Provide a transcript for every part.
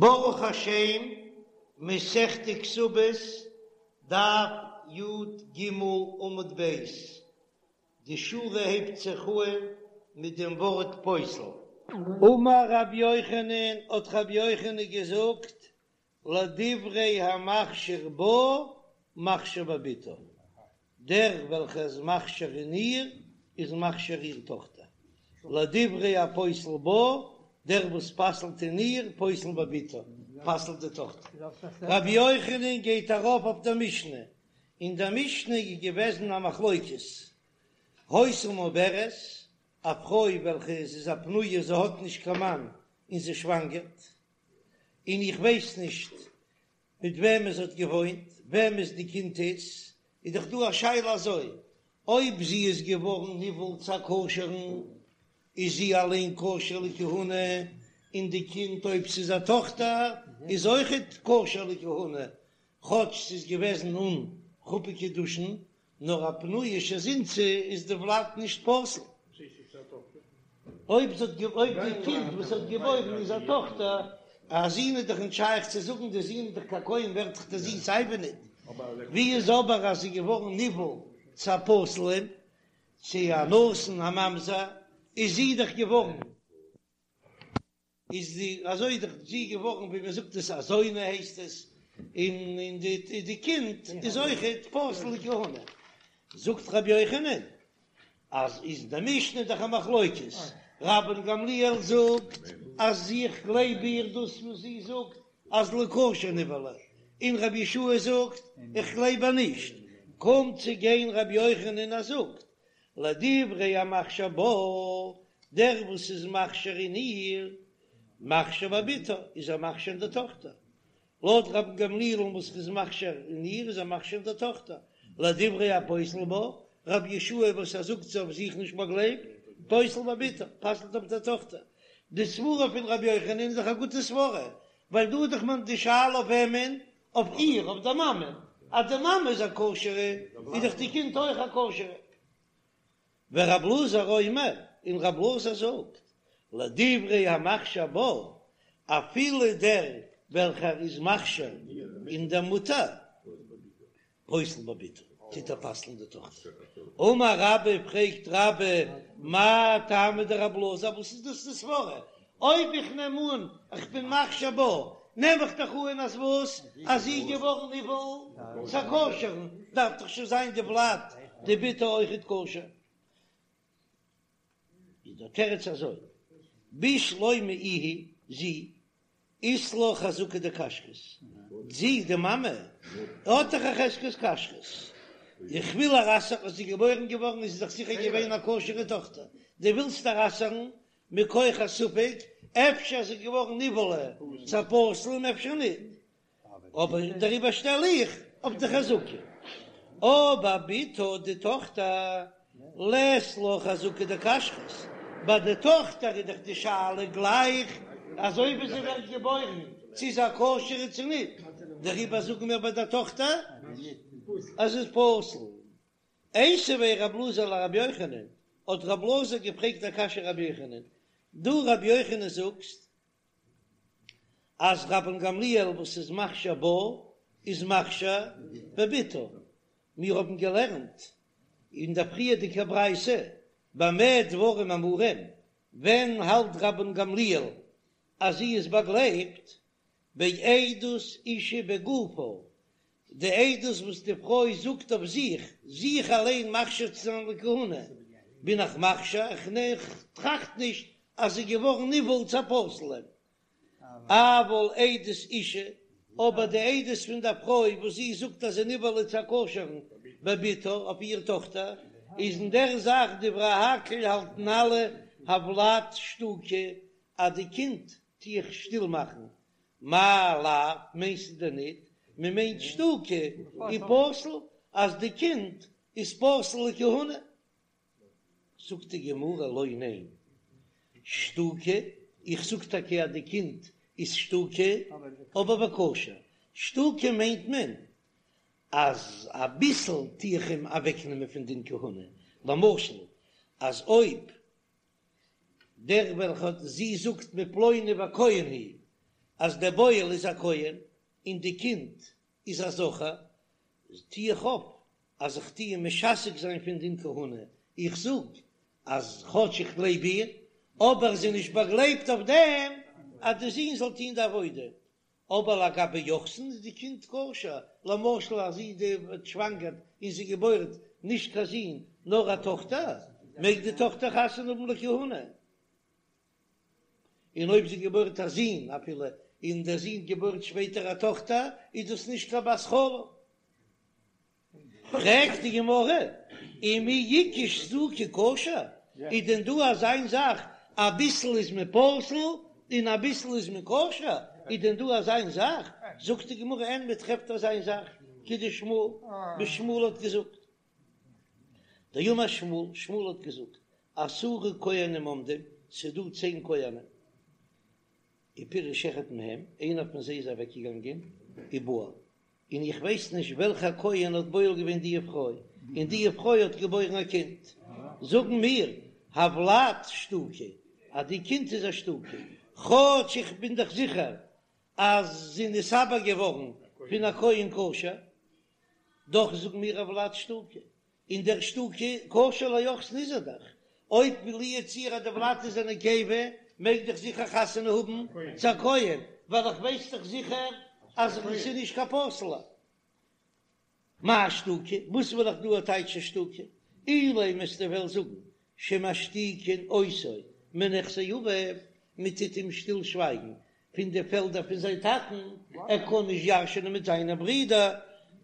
ברוך השם, מסכת כתובות, דף י"ג עמוד ב', די שורה הייבט זיך אהן מיט דעם ווארט פוסל. אמר רבי יוחנן, האט רבי יוחנן געזאגט, לדברי המכשיר בה מכשיר בבתה, דער וועלכער איז מכשיר אין איר, איז מכשיר איר טאכטער, לדברי הפוסל בה, דער וואס פסל'ט אין איר, פוסל בבתה, פסל'ט די טאכטער. רבי יוחנן גייט ארויף אויף דער משנה, אין דער משנה איז געוועזן א מחלוקת, היתה מעוברת, א פרוי וועלכע איז איז א פנויה זי האט נישט קיין מאן און זי שוואנגערט, און איך ווייס נישט מיט וועמען זי האט געוואוינט, וועמענס די קינד איז, איז דאך דא א שאלה אזוי, אויב זי איז געווארן נבעל צו א כשר'ן, איז זי אליין כשר לכהונה, און די קינד אויב ס'איז א טאכטער איז אויכעט כשר לכהונה, כאטש ס'איז געוועזן אן חופה קידושין, נאר א פנויה שזינתה איז די ולד נישט פסול. אויב זי האט אויב די קינד וואס האט געבוירן איז א טאכטער, א זון איז דאך נישט שייך צו זאגן, די זון איז דאך קיין כהן ווערט דאך די זון סיי ווי ניט. ווי איז אבער אז זי איז געווארן נבעל צו א פסול'ן, צו א נתין א ממזר, איז זי דאך געווארן. איז די אזוי איז דאך זי געווארן ווי מען זאגט עס א זונה הייסט עס, און און די די קינד איז אויכעט פסול לכהונה. זאגט רבי יוחנן אז איז די משנה דאך א מחלוקת, רבן גמליאל זאגט אז איך גלייב איר דאס וואס זי זאגט אז לכשר נבעלה, און רבי יהושע זאגט איך גלייב איר נישט, קומט צו גיין רבי יוחנן און ער זאגט לדברי המכשיר בה, דער וואס איז מכשיר אין איר, מכשיר בבתה, איז ער מכשיר אין די טאכטער. לויט רבן גמליאל'ן וואס איז מכשיר אין איר, איז ער מכשיר אין די טאכטער. לדברי הפוסל בה, רבי יהושע וואס ער זאגט זי אויף זיך נישט באגלייבט, פוסל בבתה, פסל'ט אויף די טאכטער. די סברה פון רבי יוחנן איז דאך א גוטע סברה, ווייל דא איז דאך מען די שאלה אויף וועמען אויף איר, אויף דער מאמע, אז די מאמע איז א כשר'ע, איז דאך די קינד אויך א כשר'ע. ורב אלעזר אומר, און רב אלעזר זאגט, לדברי המכשיר בה, אפילו דער וועלכער איז מכשיר אין דער מוטער, פוסל בבתה, טוט ער פסל'ן די טאכטער. אמר רבה, פרעגט רבה, מאי טעמא דרב אלעזר, וואס איז דאס די סברה? אויב איך נעם אן איך בין מכשיר בה, נעם איך דאך אן אז וואס? אז זי איז געווארן נבעל צו א כשר'ן, דארף דאך שוין זיין די ולד דבתה אויכעט כשר. איז דער תירוץ אזוי, בשלמא איהי, זי, אית לה חזקה דכשרות, זי, די מאמע, האט דאך א חזקת כשרות, איך וויל איר אסר'ן, אז זי איז געבוירן געווארן איז זי דאך זיכער געווען א כשר'ע טאכטער, דו ווילסט איר אסר'ן מכח א ספק, אפשר איז זי געווארן נבעלה צו א פסול און אפשר ניט, אבער דעריבער שטעל איך אויף די חזקה. אבער בתה די טאכטער לית לה חזקה דכשרות, ביי די טאכטער איז דאך די שאלה גלייך אזוי ווי זי ווערט געבוירן צו איז א כשר'ע צו ניט, דעריבער זאגן מיר ביי די טאכטער אז ס'איז פסול. איתיביה רב אלעזר לרבי יוחנן, האט רב אלעזר געפרעגט א קשיא רבי יוחנן, דו רבי יוחנן זאגסט אז רבן גמליאל וואס איז מכשיר בה איז מכשיר בבתה, מיר האבן געלערנט אין דער פריערדיגער ברייתא במה דברים אמורים, ווען האלט רבן גמליאל אז זי איז באגלייבט? בעדות אישה בגופה, די עדות וואס די פרוי זאגט אויף זיך, זיך אליין מכשיר צו זיין לכהונה, בין איך מכשיר, איך טראכט נישט אז זי איז געווארן נבעל צו א פסול'ן. אבל עדות אישה, אבער די עדות פון דער פרוי וואס זי זאגט אז זי נבעלה צו א כשר'ן בבתה אויף איר טאכטער, איז אין דער זאך דברי הכל האלטן אלע הולד שתוקי אז די קינד טו איך שטיל מאכן, מאי לאו, מיינסטו דען ניט, מען מיינט שתוקי ופסול, אז די קינד איז פסול לכהונה? זאגט די גמרא לא ניין, שתוקי, איך זאג טאקע אז די קינד איז שתוקי, אבער וכשר, שתוקי מיינט מען אז אביסל טו איך אים אוועקנעמען פון דין כהונה, למשל אז אויב דער וועלכע האט זי זאגט מפלוני הכהן הוא. אז דער בועל איז א כהן און די קינד איז א זכר, טו איך אויף אז איך טו אים משתק זיין פון דין כהונה, איך זאג אז כאטש איך גלייב איר, אבער זי איז נישט באגלייבט אויף דעם אז די זון זאל טון די עבודה, אבער לגבי יוחסין איז די קינד כשר, למשל אז זי די ווערט שוואנגערט און זי געבוירט נישט קיין זון נאר א טאכטער, מעג די טאכטער חתונה האבן לכהונה, און אויב זי געבוירט א זון אפילו און דער זון געבוירט שפעטער א טאכטער איז דאס נישט קיין בת חלל. פרעגט די גמרא, ומי איכא שתוקי כשר, איז דען דא אזיין זאך אביסל איז מען פסול און אביסל איז מען כשר, איז דען דא אזיין זאך? זאגט די גמרא, אין מען טרעפט אזיין זאך, כדשמואל, ווי שמואל האט געזאגט, דאמר שמואל, שמואל האט געזאגט, עשרה כהנים עומדים, ס'איז דא צען כהנים, ופירש אחד מהם, איינער פון זיי איז אוועקגעגאנגען, ובעל, און איך ווייס נישט וועלכע כהן האט בועל געווען די פרוי, און די פרוי האט געבוירן א קינד, זאגן מיר, הולד שתוקי, אז די קינד איז א שתוקי, כאטש איך בין דאך זיכער אז זי איז נתעבר געווארן פון א כהן כשר, דאך זאגן מיר הולד שתוקי, און דער שתוקי כשר ליוחסין איז ער דאך, אויב לו יצוייר אז די ולד איז א נקבה מעג דאך זיכער חתונה האבן צו א כהן, ווייל איך ווייס דאך זיכער אז עס איז נישט קיין פסול'ע. מאי שתוקי? וואס וויל איך דא טייטשן שתוקי? אילימא וועסטו וועלן זאגן שמשתיקין אותו מנכסי אביו, מען טוט אים שטיל שווייגן פון די פעלדער פון זיין טאטן, ער קען נישט ירש'ענען מיט זיינע ברידער,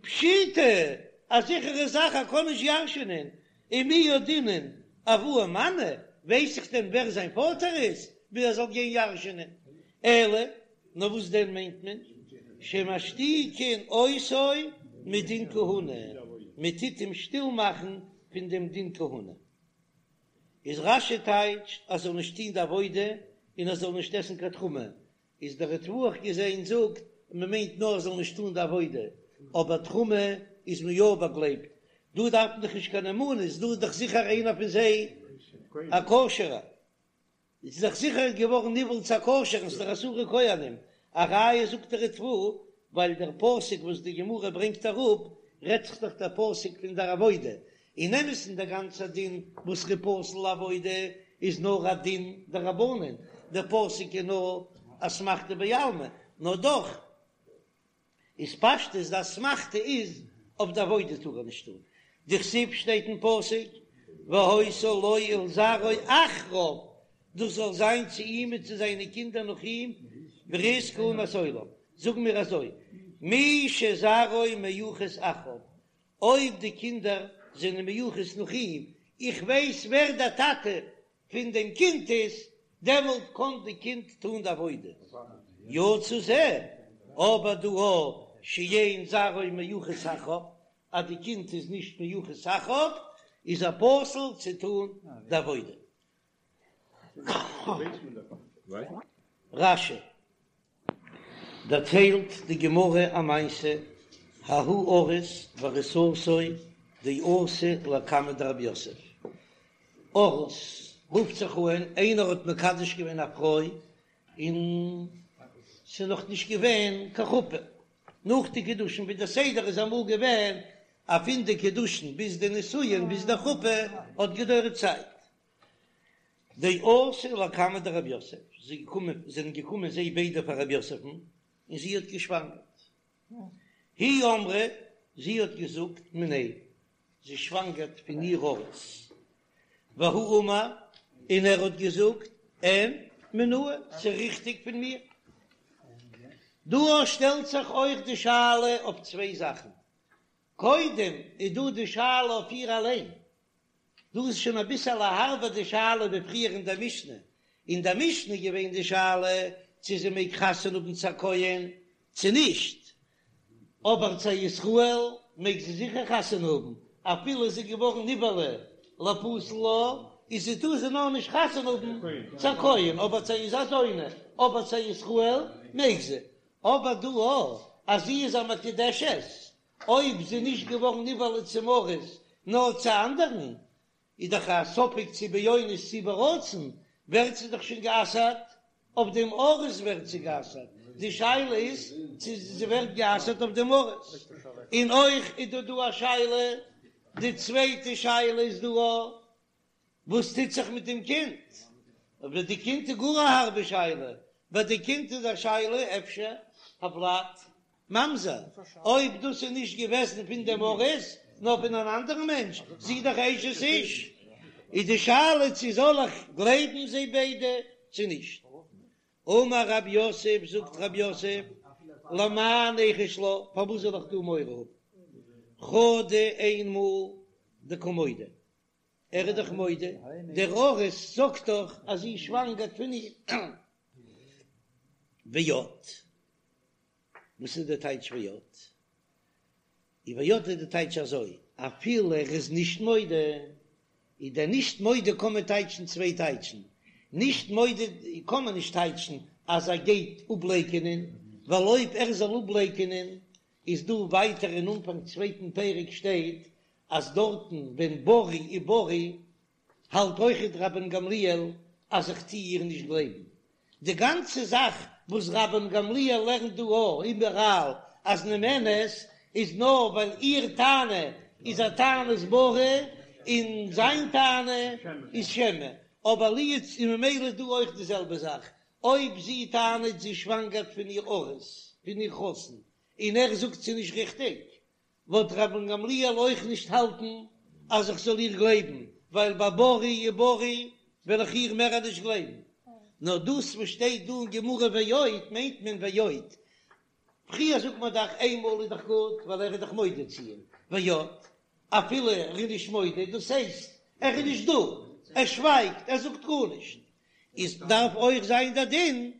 פשיטא, א זיכערע זאך ער קען נישט ירש'ענען, ומי ידעינן אבוה מנו, ווייס איך דען ווער זיין פאטער איז, ווי ער זאל גיין ירש'ענען, אלא, נאר וואס דען מיינט מען, שמשתיקין אותו מדין כהונה, מען טוט אים שטיל מאכן פון דעם דין כהונה. איז רש"י טייטשט אז זאל נישט טוהן די עבודה און ער זאל נישט עסן קיין תרומה, איז דער ריטב"א האב איך געזעהן זאגט מען מיינט נאר ער זאל נישט טוהן די עבודה, אבער תרומה איז מען יא באגלייבט, דא דארף מען דאך נישט קיין נאמנות, דא איז דאך זיכער איינער פון זיי א כשר'ער. איז דאך זיכער געווארן נבעל צו א כשר'ן, ס'איז דאך עשרה כהנים, א ראיה זאגט דער ריטב"א, ווייל דער פסוק וואס די גמרא ברענגט אראפ, רעדט זיך דאך דער פסוק פון דער עבודה, אין אמת'ן דער גאנצער דין וואס ר'איז פסול לעבודה איז נאר א דין דרבנן, דער פסוק איז נאר אסמכתא בעלמא, נאר דאך איז פשטות די אסמכתא איז אויף די עבודה טאר ער נישט טון, דכתיב שטייט אין פסוק והיתה לו ולזרעו אחריו, דאס זאל זיין צו אים און צו זיינע קינדער נאך אים ברית כהונת עולם, זאגן מיר אזוי מי שזרעו מיוחס אחריו, אויב די קינדער זענען מיוחס נאך אים, איך ווייס ווער דער טאטע פון דעם קינד איז, דעמאלט קען די קינד טון די עבודה. יצא זה, אבער דא הא שאין זרעו מיוחס אחריו, אז די קינד איז נישט מיוחס אחריו, איז ער פסול צו טון די עבודה. רש"י דערציילט די גמרא א מעשה, ההוא ארוס וארוסתו דאתו לקמיה דרב יוסף, ארוס רופט זיך אן איינער האט מקדש געווען א פרוי און ס'איז נאך נישט געווען קיין חופה, נאך די קידושין ווי די סדר איז אמאל געווען אז פון די קידושין ביז די נישואין ביז די חופה האט געדויערט צייט, דאתו לקמיה דרב יוסף, זיי געקומען, זענען געקומען זיי ביידע פאר רב יוסף'ן, און זי האט געשוואנגערט. היא אמרה, זי האט געזאגט, מיניה, זי שוואנגערט פון איר ארוס. והוא אמר, און ער האט געזאגט, אין, מינאי, ס'איז ריכטיג פון מיר. דא שטעלט זיך אויך די שאלה אויף צוויי זאכן. קודם איז דא די שאלה אויף איר אליין, דא איז שוין אביסעלע הארבער די שאלה ווי פריער אין דער משנה, אין דער משנה איז געווען די שאלה צו זי מעג חתונה האבן צו א כהן צו נישט, אבער צו א ישראל מעג זי זיכער חתונה האבן, אפילו זי איז געווארן נבעלה לפסול לה, איז זי טאר זי נאר נישט חתונה האבן צו א כהן, אבער צו איז א זונה, אבער צו א ישראל מעג זי, אבער דא אז זי איז א מקודשת אויב זי איז נישט געווארן נבעלה צום ארוס נאר צו אנדערן, איז דאך א ספק צו באונס צו ברצון, ווערט זי דאך שוין גע'אסר'ט, אויף דעם ארוס ווערט זי גע'אסר'ט. די שאלה איז צו זי ווערט גע'אסר'ט אויף דעם ארוס, און אויך איז דא דא א שאלה, די צווייטע שאלה איז דא א וואס טוט זיך מיט דעם קינד, אבער די קינד איז גאר א הארבע שאלה, ביי די קינד איז א שאלה אפשר הולד ממזר, אויב דאס איז נישט געוועזן פון דעם ארוס נאר פון אן אנדערן מענטש, זי איז דאך אשת איש, איז די שאלה צו זאל איך גלייבן זיי ביידע צו נישט. אמר רב יוסף, זאגט רב יוסף, למאי ניחוש לה, פארוואס זאל איך דא מורא האבן? חדא איינמאל דקא מודה, ער איז דאך מודה, דער ארוס זאגט דאך אז זי שוואנגערט פון אים. ועוד, וואס איז די טייטש ועוד? און ועוד איז די טייטש אזוי, אפילו ער איז נישט מודה, איז דער נישט מודה קען מען טייטשן צוויי טייטשן, נישט מודה קען מען נישט טייטשן אז ער גייט אפלייקענען, ווייל אויב ער זאל אפלייקענען איז דא ווייטער אין אנפאנג צווייטן פרק שטייט אז דארטן ווען ברי וברי האלט אויכעט רבן גמליאל אז איך טוה איר נישט גלייבן. די גאנצע זאך וואס רבן גמליאל לערנט דא א איבעראל אז נאמנת איז נאר ווייל איר טענה איז א טענת ברי און זיין טענה איז שמא, אבער לו יצ און ממילא איז דא אויך די זעלבע זאך אויב זי טענה'ט זי שוואנגערט פון איר ארוס פון איר חתן און ער זאגט ס'איז נישט ריכטיג וואלט רבן גמליאל אויך נישט האלטן אז איך זאל איר גלייבן, ווייל ביי ברי וברי וועל איך איר מער נישט גלייבן. נאר דאס וואס שטייט דא אין גמרא ועוד מיינט מען ועוד. פריער זאגט מען דאך איינמאל איז דאך גוט ווייל ער איז דאך מודה צו איר, ועוד אפילו ער איז נישט מודה, דאס הייסט ער איז נישט דא, ער שווייגט, ער זאגט גארנישט, איז דארף אויך זיין דער דין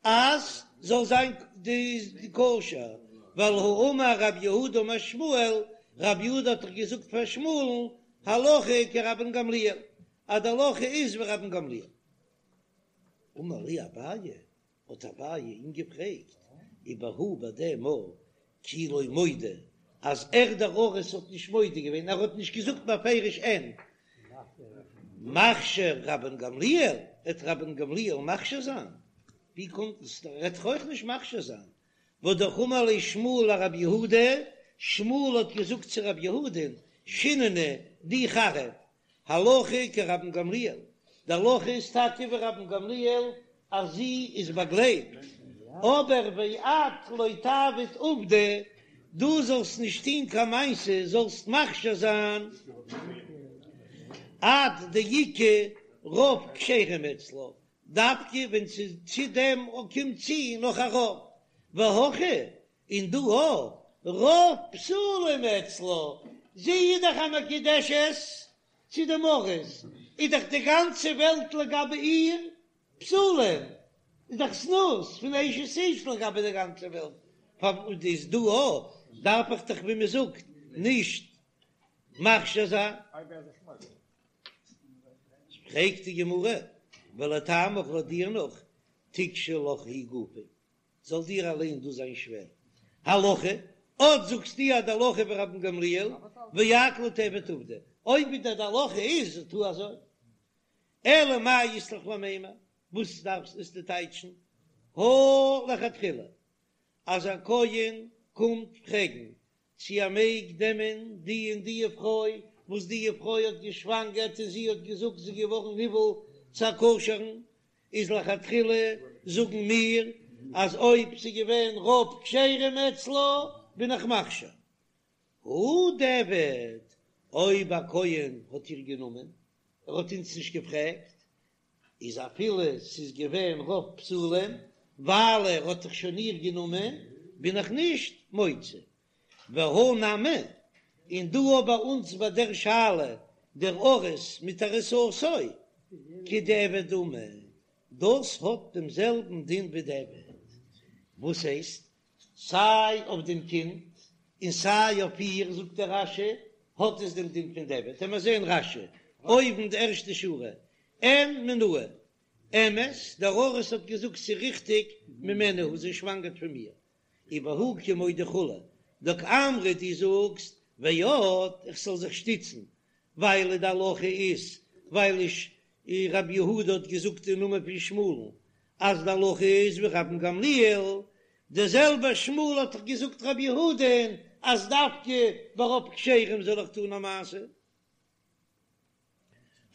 אז זאל זיין די כשר, ווייל האמר רב יהודה אמר שמואל, רב יהודה האט דאך געזאגט פאר שמואל'ן הלכה כרבן גמליאל, אז די הלכה איז ווי רבן גמליאל. אמר ליה אביי, האט אביי אים געפרעגט, ובהא ביי דעם מאל כי לא מודה, אז ער דער ארוס האט נישט מודה געווען, ער האט נישט געזאגט בפירוש אין מכשיר רבן גמליאל, וועט רבן גמליאל מכשיר זיין? ווי קומט עס? ער וועט דאך אויך נישט מכשיר זיין. והא אמר ליה שמואל לרב יהודה, שמואל האט געזאגט צו רב יהודה'ן, שיננא דו חריף, הלכה כרבן גמליאל, די הלכה איז טאקע ווי רבן גמליאל אז זי איז באגלייבט, אבער ואת לא תעביד עובדא, דו זאלסט נישט טון קיין מעשה, זאלסט מכשיר זיין עד דאיכא רוב כשרים אצלה, דווקא ווען צו דעם קומט צו נאך א רוב, והכא און דא הא רוב פסולים אצלה, זי איז דאך א מקודשת צו דעם ארוס, איז דאך די גאנצע וועלט לגבי איר פסולים, איז דאך זנות פון אשת איש לגבי די גאנצע וועלט, פארוואס איז דא הא דארף איך דאך ווי מען זאגט נישט מכשיר זיין. פרעגט די גמרא, ולטעמיך לויט דיר נאך, תיקשי לך היא גופא, זאל דיר אליין דאס זיין שווער. הלכה, אט זאגסטו אז די הלכה ווי רבן גמליאל, ואת לא תעביד עובדא, אויב ווי די הלכה איז, טו אזוי. אלא מאי אית לך למימר, וואס דארפסט עס צו טייטשן? הא לכתחילה, אז א כהן קומט פרעגן צו ער מעג נעמען די און די פרוי וואס די פרוי האט געשוואנגערט און זי האט געזאגט זי איז געווארן נבעל צו א כשר'ן, איז לכתחילה זאגן מיר אז אויב ס'איז געווען רוב כשרים אצלה בין איך מכשיר. הא דיעבד, אויב א כהן האט איר גענומען, ער האט אונז נישט געפרעגט, איז אפילו ס'איז געווען רוב פסולים, ווייל ער האט דאך שוין איר גענומען, בין איך נישט מוציא. והא נמי, און דא אויך ביי אונז ביי דער שאלה, דער ארוס מיט ארוסתו, כדיעבד דמי, דאס האט דעם זעלבן דין ווי דיעבד. וואס הייסט? סיי אויף דעם קינד און סיי אויף איר, זאגט דער רש"י, האט עס דעם דין פון דיעבד. לאמיר זען רש"י, אויבן די ערשטע שורה, אין מינאי, אמת, דער ארוס האט געזאגט ס'איז ריכטיג, ממני הוא, זי שוואנגערט פון מיר, ובהא קא מודה כו', דקאמרת דו זאגסט, ועוד, איך זאל זיך שטיצן, ווייל די הלכה איז, ווייל איש רבי יהודה האט געזאגט אין נאמען פון שמואל'ן, אז די הלכה איז ווי רבן גמליאל. דער זעלבער שמואל האט דאך געזאגט רבי יהודה'ן אז דווקא ברוב כשרים זאל איך טון א מעשה.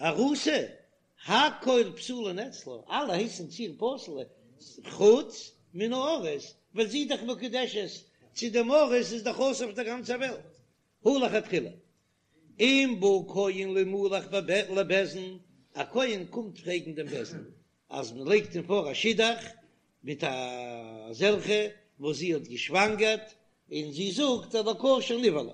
ארוסה, הכל פסולין אצלה, אלע הייסן צו איר פסול, חוץ מן הארוס, ווייל זי איז דאך מקודשת צו דעם ארוס איז דאך אסור אויף דער גאנצער וועלט, הא לכתחילה. אם בא כהן לימלך לבית דין, א כהן קומט פרעגן דעם בית דין אז מען לייגט אים פאר א שידוך מיט אזעלכע וואס זי האט געשוואנגערט און זי זאגט אז לכשר נבעלה,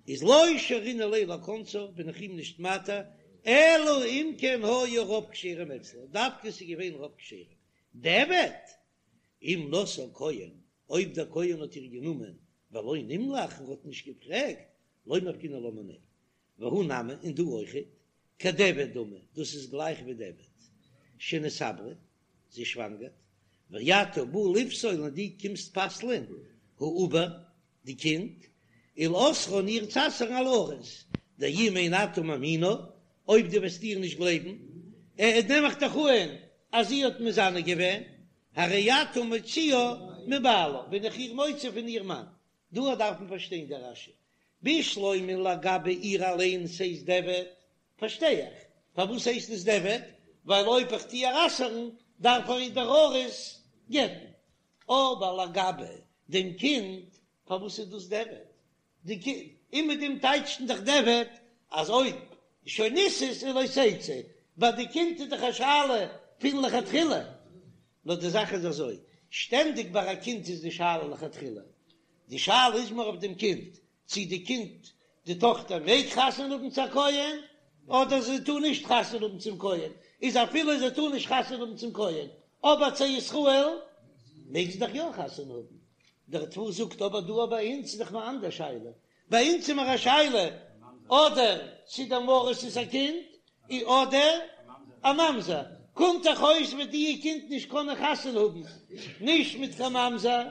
איז לא שרינן ליה לכונסה, בין איך אים נישט מתיר, אלא אם כן היו רוב כשרים אצלה, דווקא ס'איז געווען רוב כשרים, דיעבד אם נשאה כהן, אויב דער כהן האט איר גענומען ולא נמלך און האט נישט געפרעגט, לא מפקינן לה מיניה, והא נמי, און דא אויכעט, כדיעבד דמי, דאס איז גלייך ווי דיעבד, שנתעברה, זי שוואנגערט, ואתה בא לפסול און דו קומסט פסל'ען, העובר, די קינד, ולאוסרה און איר צו אסר'ן על הארוס, דאם אין אתה מאמינה, אויב דו וועסט איר נישט גלייבן, ע ע נעם איך דאך אן אז זי האט מזנה געווען, הרי אתה מוציאה מבעלה, בין איך איר מוציא פון איר מאן. דא דארף מען פארשטיין די רש"י, בשלמא לגבי איר אליין ס'הייסט דיעבד, פארשטיי איך פארוואס הייסט עס דיעבד, ווייל אויב איך טו איר אסר'ן דארף ער איר דער ארוס גט'ן, אבער לגבי דעם קינד פארוואס איז דאס דיעבד? די קינד, און מיט דעם טייטשט מען דאך דיעבד אז אויב שוין נישאת איז לא תצא, ביי די קינד איז דאך א שאלה פון לכתחילה, נאר די זאך איז אזוי, שטענדיג ביי א קינד איז די שאלה לכתחילה, די שאלה איז מער אויף דעם קינד, צי די קינד, די טאכטער מעג חתונה האבן צו א כהן, אדער זי טאר נישט חתונה האבן צום כהן, איז אפילו זי טאר נישט חתונה האבן צום כהן, אבער צו ישראל מעג זי דאך יא חתונה האבן. דער ריטב"א זאגט אבער דא ביי אונז איז דאך נאר אנדער שאלה, ביי אונז איז מיר א שאלה אדער צו דעם ארוס'ס א קינד אדער א ממזר, קומט דאך אויס וועט די קינד נישט קענען חתונה האבן נישט מיט קיין ממזר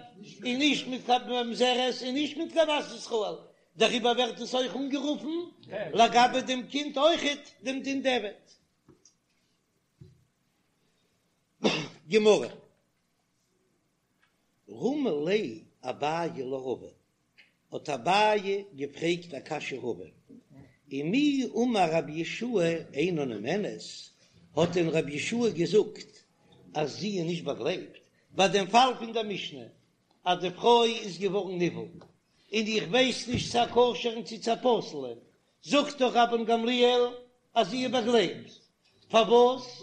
און נישט מיט קיין ממזרת און נישט מיט קיין בת ישראל, דעריבער ווערט עס אויך אנגערופן לגבי דעם קינד אויכעט דעם דין דיעבד. גמרא. רמי ליה אביי לרבא, האט אביי געפרעגט א קשיא רבא, ומי אמר רבי יהושע אינה נאמנת, האט דען רבי יהושע געזאגט אז זי איז נישט באגלייבט, ביי דעם פאל פון דער משנה אז די פרוי איז געווארן נבעל און איך ווייס נישט צו א כשר'ן צו צו א פסול'ן, זאגט דאך רבן גמליאל אז זי איז באגלייבט, פארוואס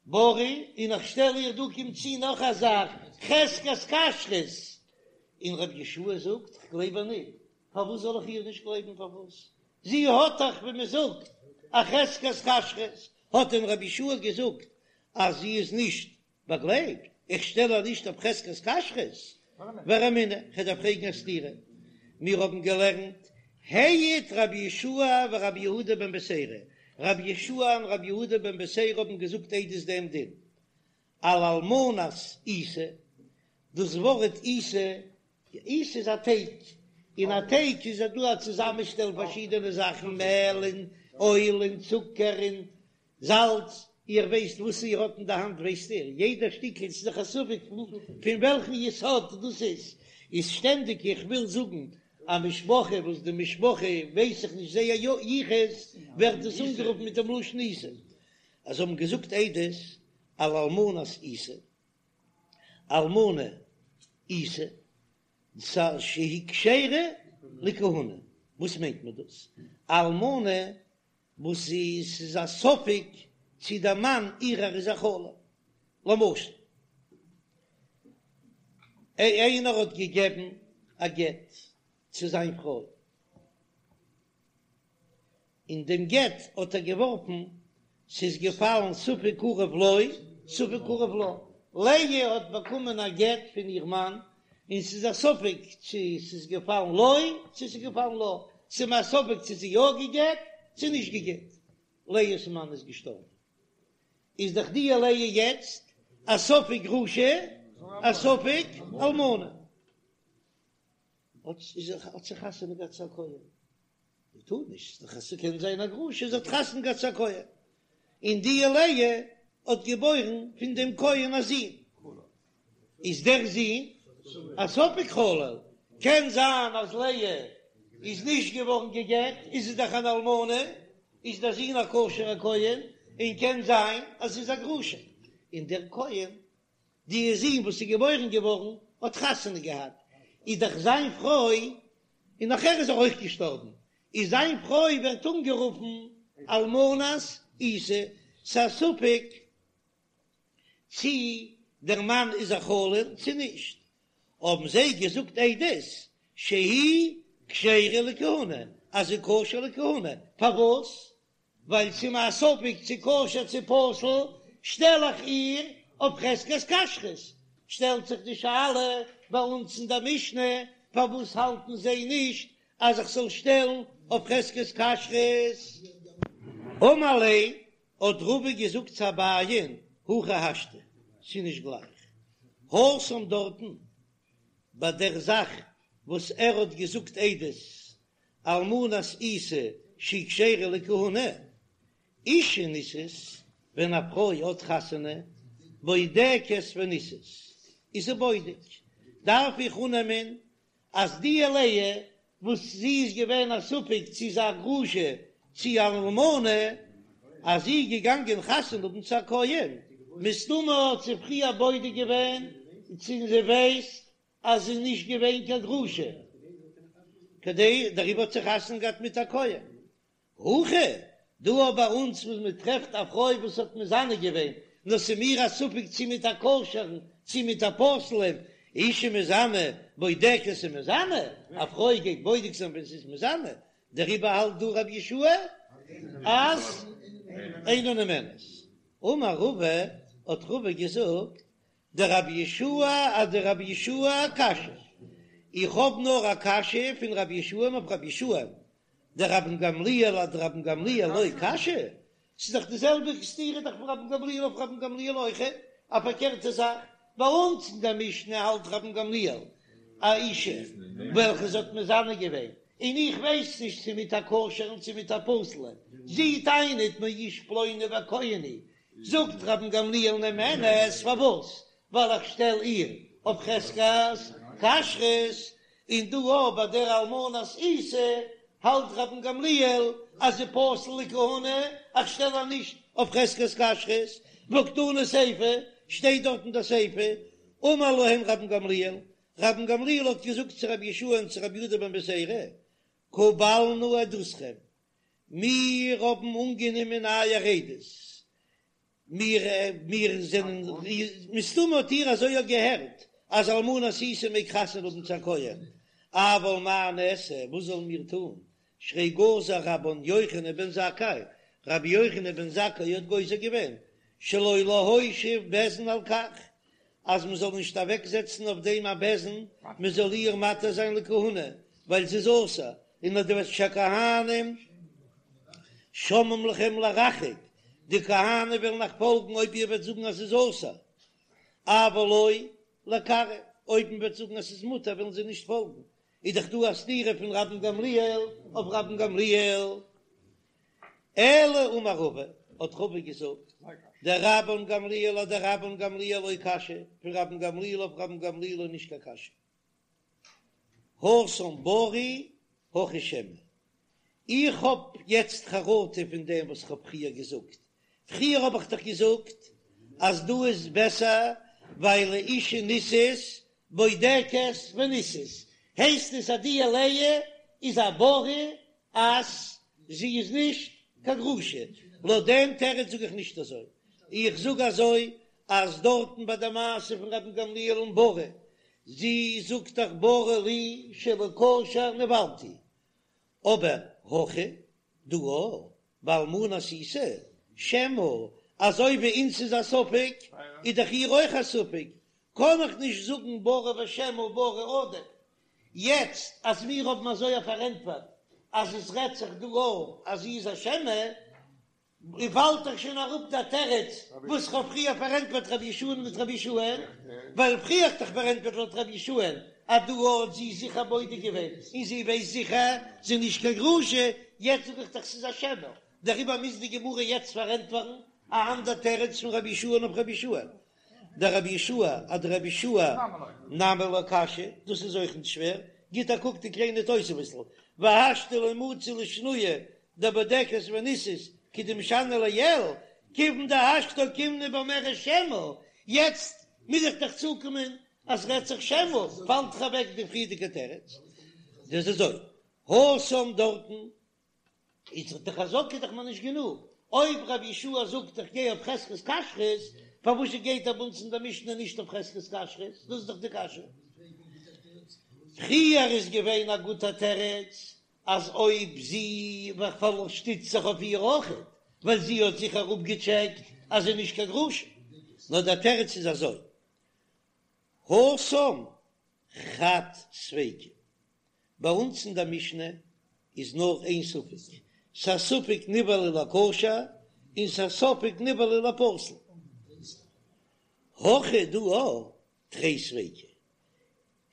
בריא, און איך שטעל איר דא קומט צו נאך א זאך, חזקת כשרות, און רבי יהושע זאגט איך גלייב איר ניט, פארוואס זאל איך איר נישט גלייבן פארוואס? זי האט דאך ווי מען זאגט א חזקת כשרות, האט דען רבי יהושע געזאגט אז זי איז נישט באגלייבט, איך שטעל איר נישט אויף חזקת כשרות, ורמינהו, כ'דארף פרעגן א סתירה, מיר האבן געלערנט העיד רבי יהושע ורבי יהודה בן בתירא, רבי יהושע און רבי יהודה בן בתירא האבן געזאגט עדות דעם דין על אלמנת עיסה, דאס ווארט עיסה, עיסה איז א טייג, אין א טייג איז דא א צוזאמענשטעל פארשידענע זאכן, מעל און אויל און צוקער און זאלץ, איר ווייסט וואס איר האט אין די האנט ווייסט איר, יעדע שטיקל ס'איז דאך א ספק פון וועלכן יסוד דאס איז, איז שטענדיג איך וויל זאגן א משפחה וואס די משפחה ווייס איך נישט זייער יחוס ווערט דאס אנגערופן מיט דעם לשון עיסה, אז זיי האבן געזאגט עדות על אלמנת עיסה, אלמנה עיסה, שהיא כשרה לכהונה, וואס מיינט מען דאס אלמנה וואס זי ס'איז א ספק צי דער מאן אירער איז א חלל. למשל, איינער האט געגעבן א גט צו זיין פרוי, און דעם גט האט ער געווארפן, ס'איז געפאלן ספק קרוב לו ספק קרוב לה, לאה האט באקומען א גט פון איר מאן, און ס'איז א ספק צו ס'איז געפאלן לו צו ס'איז געפאלן לה, ס'איז מיר א ספק צו זי יא גע'גט צו נישט גע'גט, לאה'ס מאן איז געשטארבן, איז דאך די לאה יעצט א ספק גרושה א ספק אלמנה, האט זי חתונה געהאט צו א כהן. זי טאר נישט, ס'איז דאך ס'קען זיין א גרושה, זי האט חתונה געהאט צו א כהן, און די לאה האט געבוירן פון דעם כהן א זון, איז דער זון. א ספק חלל, קען זיין אז לאה איז נישט געווארן גע'גט, איז זי דאך אן אלמנה, איז דער זון א כשר'ער כהן, און קען זיין אז זי איז א גרושה, און דער כהן, די זון וואס איז געבוירן געווארן האט חתונה געהאט, איז דאך זיין פרוי, און נאכער איז ער אויך געשטארבן, איז זיין פרוי ווערט אנגערופן אלמנת עיסה, ס'איז א ספק צי דער מאן איז א חלל צי נישט, האבן זיי געזאגט עדות שהיא כשרה לכהונה, אז זי איז כשר לכהונה, פארוואס? ווייל ס'איז מיר א ספק צו כשר צו פסול, שטעל איך איר אויף חזקת כשרות, שטעלט זיך די שאלה ביי אונז אין דער משנה, פארוואס האלטן זיי נישט אז איך זאל שטעלן אויף חזקת כשרות? אמר ליה, האט רבא געזאגט צו אביי'ן, הכי השתא, ס'איז נישט גלייך, התם דארטן ביי דער זאך וואס ער האט געזאגט עדות אלמנת עיסה שהיא כשרה לכהונה, אישה נישאת, ווען א פרוי האט חתונה, בודקת ונישאת, איז זי בודק, דארף איך אננעמען אז די לאה וואס זי איז געווען א ספק צו איז א גרושה צו אן אלמנה, אז זי איז געגאנגען חתונה האבן צו א כהן, מסתמא האט זי פריער בודק געווען צו זי ווייסט אז זי איז נישט געווען קיין גרושה, כדי דעריבער האט זי חתונה געהאט מיט א כהן. הכא, דא אבער ביי אונז וואס מען טרעפט א פרוי וואס האט מזנה געווען, נאר ס'איז מיר א ספק צי מיט א כשר'ן צי מיט א פסול'ן, אישה מזנה בודקת ומזנה, א פרוי גייט בודק זיין ווען זי איז מזנה, דעריבער האלט דא רבי יהושע אז אינה נאמנת. אמר רבא, האט רבא געזאגט, דרבי יהושע אדרבי יהושע קשיא, איך האב נאר א קשיא פון רבי יהושע אויף רבי יהושע, דרבן גמליאל אדרבן גמליאל לא קשיא, ס'איז דאך די זעלבע סתירה דאך פון רבן גמליאל אויף רבן גמליאל אויכעט, א פארקערטע זאך, ביי אונז אין דער משנה האלט רבן גמליאל א אישה וועלכע זי האט מזנה געווען, און איך ווייס נישט צו מיט א כשר'ן צו מיט א פסול'ן, זי טענה'ט מאיש פלוני וכהן הוא, זאגט רבן גמליאל נאמנת, פארוואס? ווייל איך שטעל איר אויף חזקת כשרות, און דא אויך ביי דער אלמנת עיסה האלט רבן גמליאל אז זי פסול לכהונה, איך שטעל איר נישט אויף חזקת כשרות, והא קתני סיפא, שטייט דארט אין דער סיפא, אמר להם רבן גמליאל, רבן גמליאל האט געזאגט צו רבי יהושע און צו רבי יהודה בן בתירא, קבלנו עדותכם, מיר האבן אנגענומען אייער עדות, מיר מיר זענען, מסתמא האט איר אזוי אויך געהערט, אז אלמנת עיסה מעג חתונה האבן צו א כהן, אבל מה נעשה, וואס זאלן מיר טון, שהרי גזר רבן יוחנן בן זכאי, רבי יוחנן בן זכאי האט גוזר געווען, שלא להושיב בית דין על כך, אז מען זאל נישט אוועק זעצן אויף דעם א בית דין, מען זאל איהר מתיר זיין לכהונה, ווייל זי איז אסור, און אז דו וועסט שהכהנים שומעים לכם לרחוק, די כהנים וועלן אייך פאלגן אויב איר וועט זאגן אז ס'איז אסור, אבל לא לקרב, אויב מען וועט זאגן אז ס'איז מותר וועלן זיי נישט פאלגן, איז דאך דא א סתירה פון רבן גמליאל אויף רבן גמליאל. אלא אמר רבא, האט רבא געזאגט, דרבן גמליאל אדרבן גמליאל לא קשיא, פון רבן גמליאל אויף רבן גמליאל איז נישט קיין קשיא. התם ברי הכא שמא. איך האב יעצט חרטה פון דעם וואס איך האב פריער געזאגט. פריער האב איך דאך געזאגט אז דא איז בעסער ווייל אישה נישאת בודקת ונישאת, הייסט עס אז די לאה איז א ברי אז זי איז נישט קיין גרושה. לויט דעם תירוץ זאג איך נישט אזוי, איך זאג אזוי אז דארטן ביי די מעשה פון רבן גמליאל און ברי, זי זאגט דאך ברי לי שלכשר נבעלתי, אבער הכא דא באלמנת עיסה שמא, אזוי ווי אונז איז א ספק איז דאך איר אויך א ספק, קען איך נישט זאגן ברי ושמא ברי עדיף, יעצט אז מיר האבן אזוי א פארענטפערט אז עס רעדט זיך דא אויך אז זי איז א שמא, און פאלט דאך שוין אראפ דער תירוץ וואס כ'האב פריער פארענטפערט רבי יהושע'ן מיט רבי יהושע'ן, ווייל פריער האט דאך פארענטפערט לויט רבי יהושע'ן אז דא האט זי זיכער בודק געווען און זי ווייסט זיכער זי איז נישט קיין גרושה, יעצט זאג איך דאך ס'איז א שמא, דעריבער מוז די גמרא יעצט פארענטפערן א אנדער תירוץ פון רבי יהושע'ן אויף רבי יהושע'ן. דרבי יהושע אדרבי יהושע נמי לא קשיא, דאס איז אויך נישט שווער, גיט א קוק די קליינע תוספות'ל, והשתא לא מצי לשנויי דבודקת ונישאת כדמשני לעיל, כיוון דהשתא אוקימנא ואומרת שמא, יעצט מוז איך דאך צוקומען אז רעדט זיך שמא, פאלט דאך אוועק די פריערדיגע תירוץ, דאס איז אזוי, התם דארטן איז דאך די חזקה דאך מיר נישט גענוג, אויב רבי יהושע זאגט איך גיי אויף חזקת כשרות, פארוואס גייט ער ביי אונז אין דער משנה נישט אויף חזקת כשרות? דאס איז דאך די קשיא. פריער איז געווען א גוטע תירוץ אז אויב זי שטיצט זיך אויף איר אויכעט, ווייל זי האט זיכער אפגעטשעקט אז זי איז נישט קיין גרושה, נאר דער תירוץ איז אזוי, התם חד ספיקא, ביי אונז אין דער משנה איז נאר איין ספק, ס'א ספק נבעלה לכשר און ס'א ספק נבעלה לפסול. הכא דא תרי ספיקי,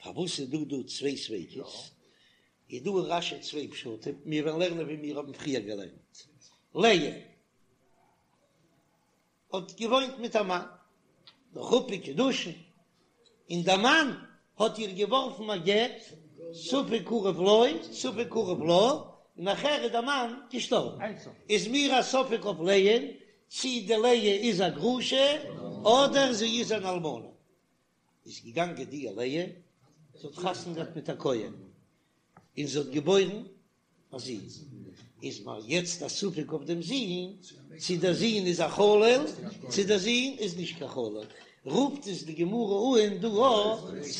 פארוואס איז דא דא צוויי ספיקות? איז דא אין רש"י צוויי פשטים, מיר וועלן לערנען ווי מיר האבן פריער געלערנט. לאה האט געוואוינט מיט א מאן, נאך חופה וקידושין, און דער מאן האט איר געווארפן א גט, ספק קרוב לו ספק קרוב לה, און נאכער איז דער מאן געשטארבן, איז מיר א ספק אויף לאה'ן צי די לאה איז א גרושה אדער זי איז אן אלמנה. איז געגאנגען די לאה, זי האט חתונה געהאט מיט א כהן, און זי האט געבוירן א זון, איז מיר יעצט א ספק אויף דעם זון, צו דער זון איז א חלל, צו דער זון איז נישט קיין חלל, רופט עס די גמרא אן דא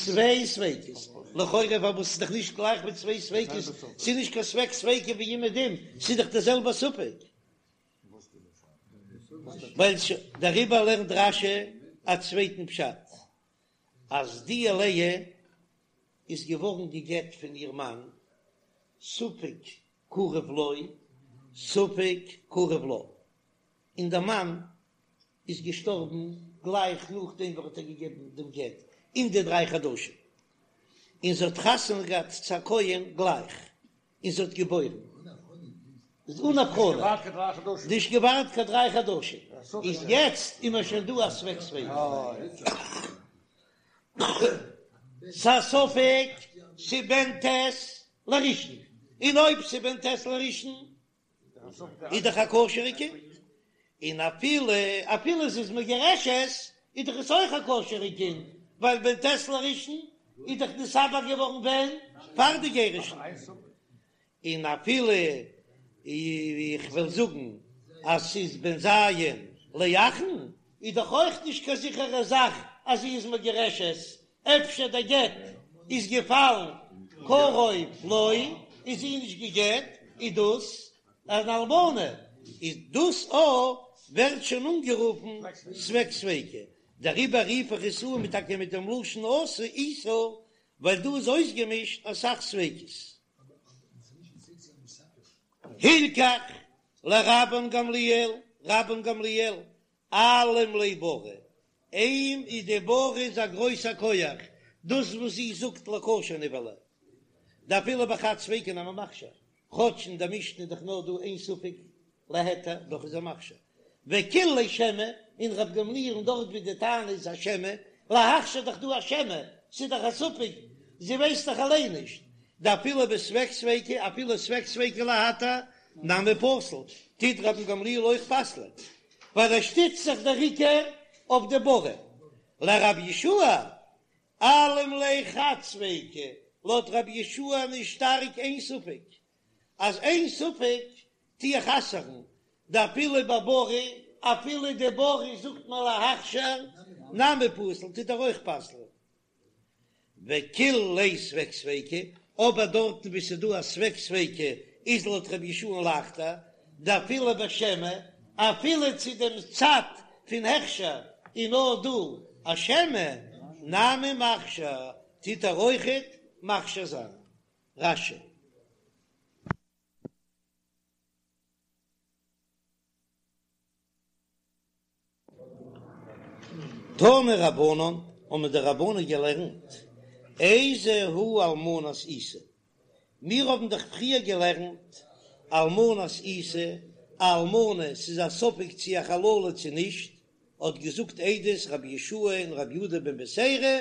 צוויי ספיקות, לכאורה פארוואס איז דאך נישט גלייך מיט צוויי ספיקות, ס'איז נישט קיין ספק ספיקא ווי אומעדום, ס'איז דאך דער זעלבער ספק. ווייל דעריבער לערנט רש"י א צווייטן פשט, אז די לאה איז געווארן גע'גט פון איר מאן, ספק קרוב לו ספק קרוב לה, און דער מאן איז געשטארבן גלייך נאכדעם וואס ער האט איר געגעבן דעם גט אין די דריי חדשים, און זי האט חתונה געהאט צו א כהן גלייך, און זי האט געבוירן אן הבחנה, נישט געווארט קיין דריי חדשים, איז יעצט איז מיר שוין דא א ספק ספיקא, ס'א ספק ס'בן ט' לראשון, און אויב ס'בן ט' לראשון איז דאך א כשר'ע קינד, און אפילו אפילו ס'איז מגורשת איז דאך עס אויך א כשר'ע קינד, ווייל בן ט' לראשון איז דאך נתעבר געווארן ווען? פאר די גירושין, און אפילו איך וועל זאגן אז ס'איז בן ז' לאחרון, איז דאך אויך נישט קיין זיכערע זאך אז זי איז מגורשת, אפשר דער גט איז געפאלן קרוב לו, איז זי נישט גע'גט, איז דאס אן אלמנה, איז דאס א ווערט שוין אנגערופן ספק ספיקא, דעריבער רוף איך עס אן טאקע מיט דעם לשון אסור איסור, ווייל דא איז אויסגעמישט אסאך ספיקות. הלכך לרבן גמליאל, רבן גמליאל, אלים ליה ברא, אים איז די ברא איז א גרויסע כח, דאס וואס זי זאגט לכשר נבעלה, דאפילו בחד ספיקא נמי מכשיר, כאטש אין די משנה איז דאך נאר דא איין ספק להיתר, דאך איז ער מכשיר, וקיל ליה שמא, און ר' גמליאל'ן דארט ווי די טענה איז א שמא, להכשיר דאך דא א שמא, ס'איז דאך א ספק, זי ווייסט דאך אליין נישט, דאפילו בספק ספיקא, אפילו ספק ספיקא להתיר, נמי פסיל, טוט רבן גמליאל אויך פסל'ען, ווייל ער שטיצט זיך דער עיקר אויף די ברא, לרבי יהושע אלים ליה חד ספיקא, לויט רבי יהושע איז שטארק איין ספק, אז איין ספק טו איך אסר'ן, דאפילו בברא, אפילו די ברא זאגט מען להכשר, נמי פסיל טוט ער אויך פסל'ען. וקיל ליה ספק ספיקא, אבער דארטן וואו ס'איז דא א ספק ספיקא איז לויט רבי יהושע'ן לייכטער, דאפילו בשמא, אפילו צו דעם צד פון הכשר איז נאר דא א שמא, נמי מכשיר, טוט ער אויכעט מכשיר זיין. רש"י. תנו רבנן, האבן די רבנן געלערנט, איזו היא אלמנת עיסה, מיר האבן דאך פריער געלערנט אלמנת עיסה, א אלמנה, ס'איז א ספק צו א חללה צו נישט. האט געזאגט עדות רבי יהושע און רבי יהודה בן בתירא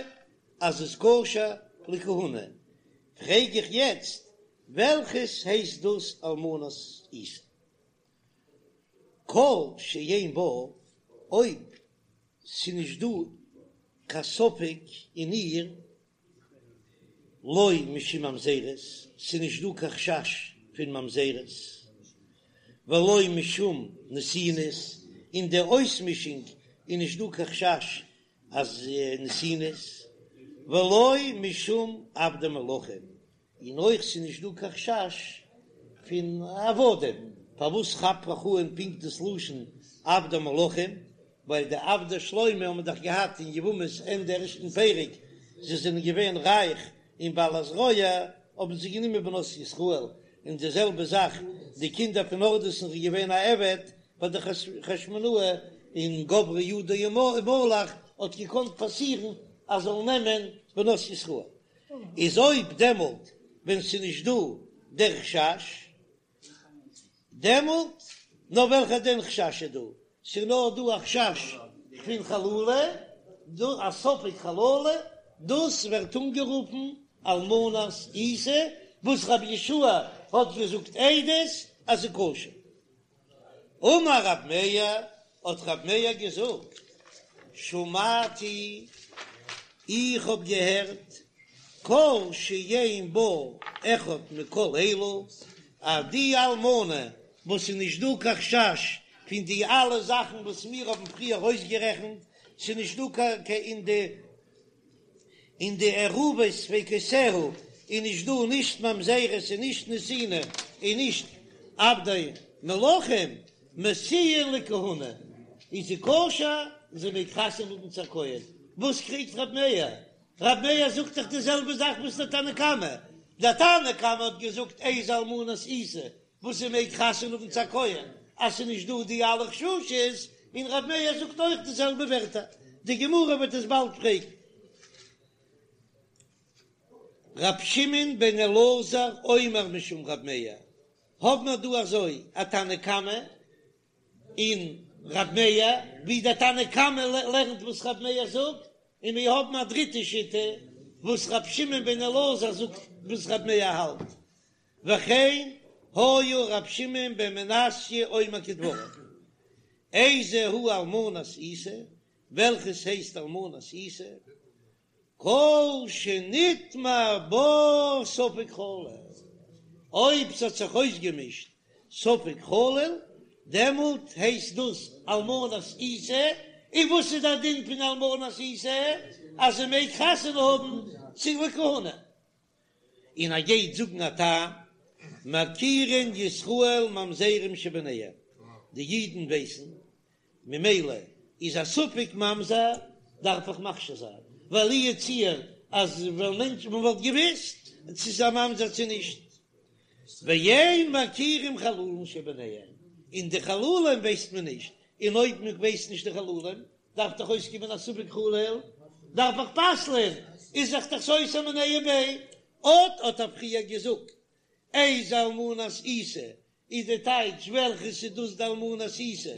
אז איז כשר לכהונה, פרעג איך יעצט וועלכעס הייסט דאס אלמנת עיסה? כל שאין בה, אויב ס'נישט דא קיין ספק אין איר, לא משום ממזרות, ס'נישט דא קיין חשש פון ממזרות, ולא משום נתינות, אין די אויסמישונג איז נישט דא קיין חשש אז נתינות, ולא משום עבדי מלכים, און אויך ס'איז נישט דא קיין חשש פון עבדים, פארוואס כאפט איך אן פונקט דאס לשון עבדי מלכים, ווייל די עבדי שלמה האבן דאך געהאט אין יבמות ענדע ערשטן פרק, זיי זענען געווען רייך און בעלת זרוע, האבן זיי גענומען בנות ישראל, און די זעלבע זאך די קינדער פון הורדוס'ן איז געווען א עבד ביי די חשמונאי, און גברה ידו ומלך האט געקאנט פאסירן אז זאלן נעמען בנות ישראל. איז אויב דעמאלט ווען ס'איז נישט דא דער חשש, דעמאלט נאר וועלכע דען חשש איז דא? ס'איז נאר דא א חשש פון חללה, דא א ספק חללה, דאס ווערט אנגערופן אלמנת עיסה, וואס רבי יהושע האט געזאגט עדות אז ס'איז כשר. אמר רב מאיר, האט רב מאיר געזאגט, שמעתי, איך האב געהערט, כל שאין בה אחד מכל אלו, אז די אלמנה וואס איז נישט דא קיין חשש פון די אלע זאכן וואס מיר האבן פריער אויסגערעכנט, ס'איז נישט דא קיין אין די אין די ערובות ספיקותיה איז נישט דא נישט ממזרות און נישט נתינה און נישט עבדי מלכים משיאין לכהונה איז זי כשר און זי מעג חתונה האבן צו א כהן, וואס קריגט רב מאיר? רב מאיר זאגט דאך די זעלבע זאך וואס דער תנא קמא, דער תנא קמא האט געזאגט איזו אלמנת עיסה וואס זי מעג חתונה האבן צו א כהן אז ס'איז נישט דא די אלע חששות, און ר' מאיר זאגט אויך די זעלבע ווערטער, די גמרא וועט עס באלד פרעגן. ר' שמעון בן אלעזר אומר משום ר' מאיר, האב מיר דא אזוי א תנא קמא און ר' מאיר, ווי דער תנא קמא לערנט וואס ר' מאיר זאגט, און מיר האבן א דריטע שיטה וואס ר' שמעון בן אלעזר זאגט וואס ר' מאיר האלט. וכן היה ר' שמעון בן מנסיא אומר כדבריו, איזו היא אלמנת עיסה, וועלכעס הייסט אלמנת עיסה? כל שנטמע בה ספק חלל, אויב ס'האט זיך אויסגעמישט ספק חלל, דעמאלט הייסט דאס אלמנת עיסה, און וואס איז דער דין פון אלמנת עיסה? אז זי מעג חתונה האבן צו לכהונה. און ער גייט זאגן א טעם, מכירין ישראל ממזרים שביניהם, די אידן ווייסן, ממילא איז א ספק ממזר דארף איך מכשיר זיין, ווייל לו יצוייר אז ווען מענטש מען וואלט געוויסט צו ס'איז א ממזר צו נישט, ואין מכירים חללים שביניהם, און די חללים ווייסט מען נישט, און אויב מען ווייסט נישט די חללים דארף דאך אויסקומען א ספק חלל, דארף איך פסל'ען, איז זיך דאך סותר מיניה וביה. אט האט ער פריער געזאגט, איזו אלמנת עיסה, איז די טייטש וועלכעס איז דאס די אלמנת עיסה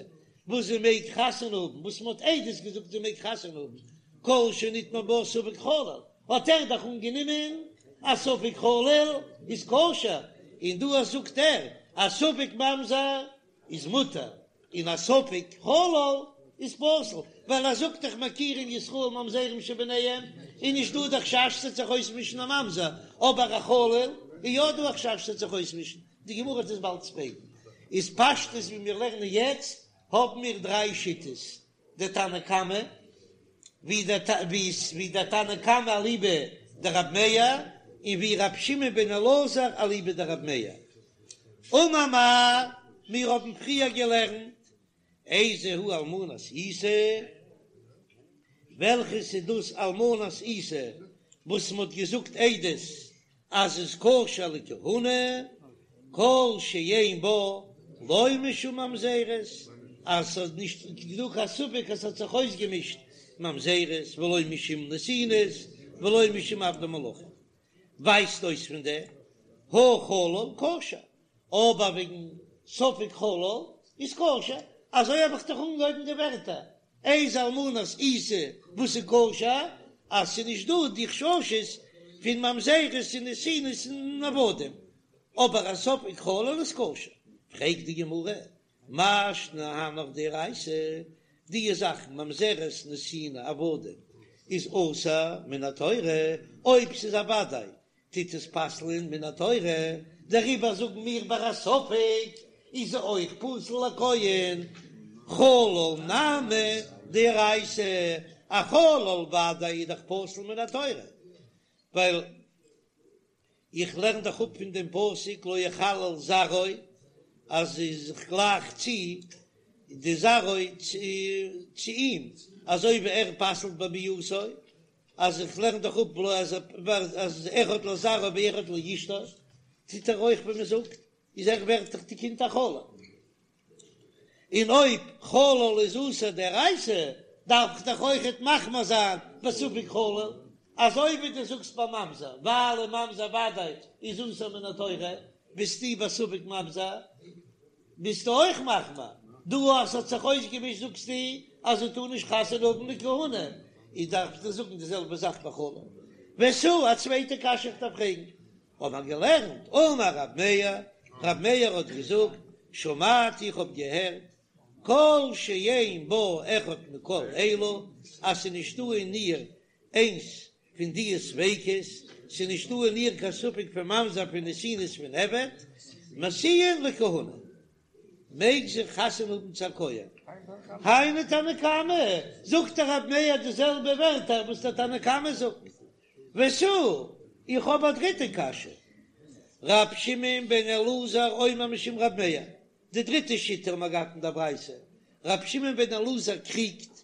וואס זי מעג חתונה האבן, וואס מען האט עדות געזאגט זי מעג חתונה האבן, כל שנטמע בה ספק חלל, האט ער דאך אנגענומען אז ספק חלל איז כשר, און דא זאגט ער אז ספק ממזר איז מותר און א ספק חלל איז פסול, ווייל ער זאגט דאך מכירים ישראל ממזרים שביניהם, איז נישט דא די חשש ס'וועט זיך אויסמישן א ממזר, אבער א חלל איז יא דא א חשש ס'וועט זיך אויסמישן, די גמרא וועט עס באלד פרעגן. איז פשטות ווי מיר לערנען יעצט האבן מיר דריי שיטות, די תנא קמא, ווי דער תנא קמא אליבא דרב מאיר, און ווי ר' שמעון בן אלעזר אליבא דרב מאיר. אמר מר, מיר האבן פריער געלערנט, איזו היא אלמנת עיסה, וועלכעס איז דאס אלמנת עיסה וואס מ'האט געזאגט עדות אז איז כשר לכהונה, כל שאין בה לא משום ממזרות, אז ס'איז נישט דא קיין ספק אז ס'האט זיך אויסגעמישט ממזרות, ולא משום נתינות, ולא משום עבדי מלכים. ווייזט אויס פון דעם הא חלל כשר, אבער וועגן ספק חלל איז כשר, אזוי האב איך דאך אנגעהויבן די ווערטער. איזה אלמנת עיסה וואס איז כשר, אז ס'איז נישט דא די חששות פון ממזרות און נתינות און עבדים, אבער א ספק חלל איז כשר. פרעגט די גמרא, מאי שנא הנך דאורייתא, די זאכן ממזרות נתינה עבדים איז אסור מן התורה, אויב ס'איז א וודאי טוט עס פסל'ען מן התורה, דעריבער זאגן מיר ביי א ספק איז זי אויך פסול לכהן, חלל נמי דאורייתא, א חלל וודאי איז דאך פסול מן התורה, ווייל איך לערן דאך אפ פון דעם פסוק לא יחלל זרעו אז איך גלייך צו די זרעו צו אים, אזוי ווי ער פסל'ט בביאתו, אז איך לערן דאך אפ אז אז אחד לזרעו ואחד לאשתו, טוט ער אויך ווי מען זאגט, איז ער ווערט דאך די קינד א חלל. און אויב חלל איז אסור דאורייתא, דארף איך דאך אויכעט מחמיר זיין בספק חלל, אזוי ווי דו זאגסט ביי ממזר, ווייל א ממזר וודאי איז אסור מן התורה, ביסטו בספק ממזר, ביסטו אויך מחמיר, דא אז ס'האט זיך אויסגעמישט זאגסטו אז זי טאר נישט חתונה האבן לכהונה, איז דארפסטו זאגן די זעלבע זאך ביי חלל. ותו, א צווייטע קשיא איך דארף פרעגן, האט מען געלערנט, אמר רב מאיר, רב מאיר האט געזאגט, שמעתי איך האב געהערט, כל שאין בה אחד מכל אלו, אז ס'איז נישטא אין איר איינס פון די ספיקות, ס'איז נישטא אין איר קיין ספק פון ממזר פון נתינות פון עבד, משיאין לכהונה, מעג זי חתונה האבן צו א כהן. היינו תנא קמא, זאגט דער רב מאיר די זעלבע ווערטער וואס דער תנא קמא זאגט. ותו, איך האב א דריטע קשיא. ר' שמעון בן אלעזר אומר משום ר' מאיר, די דריטע שיטה האבן מיר געהאט אין דער ברייתא, ר' שמעון בן אלעזר קריגט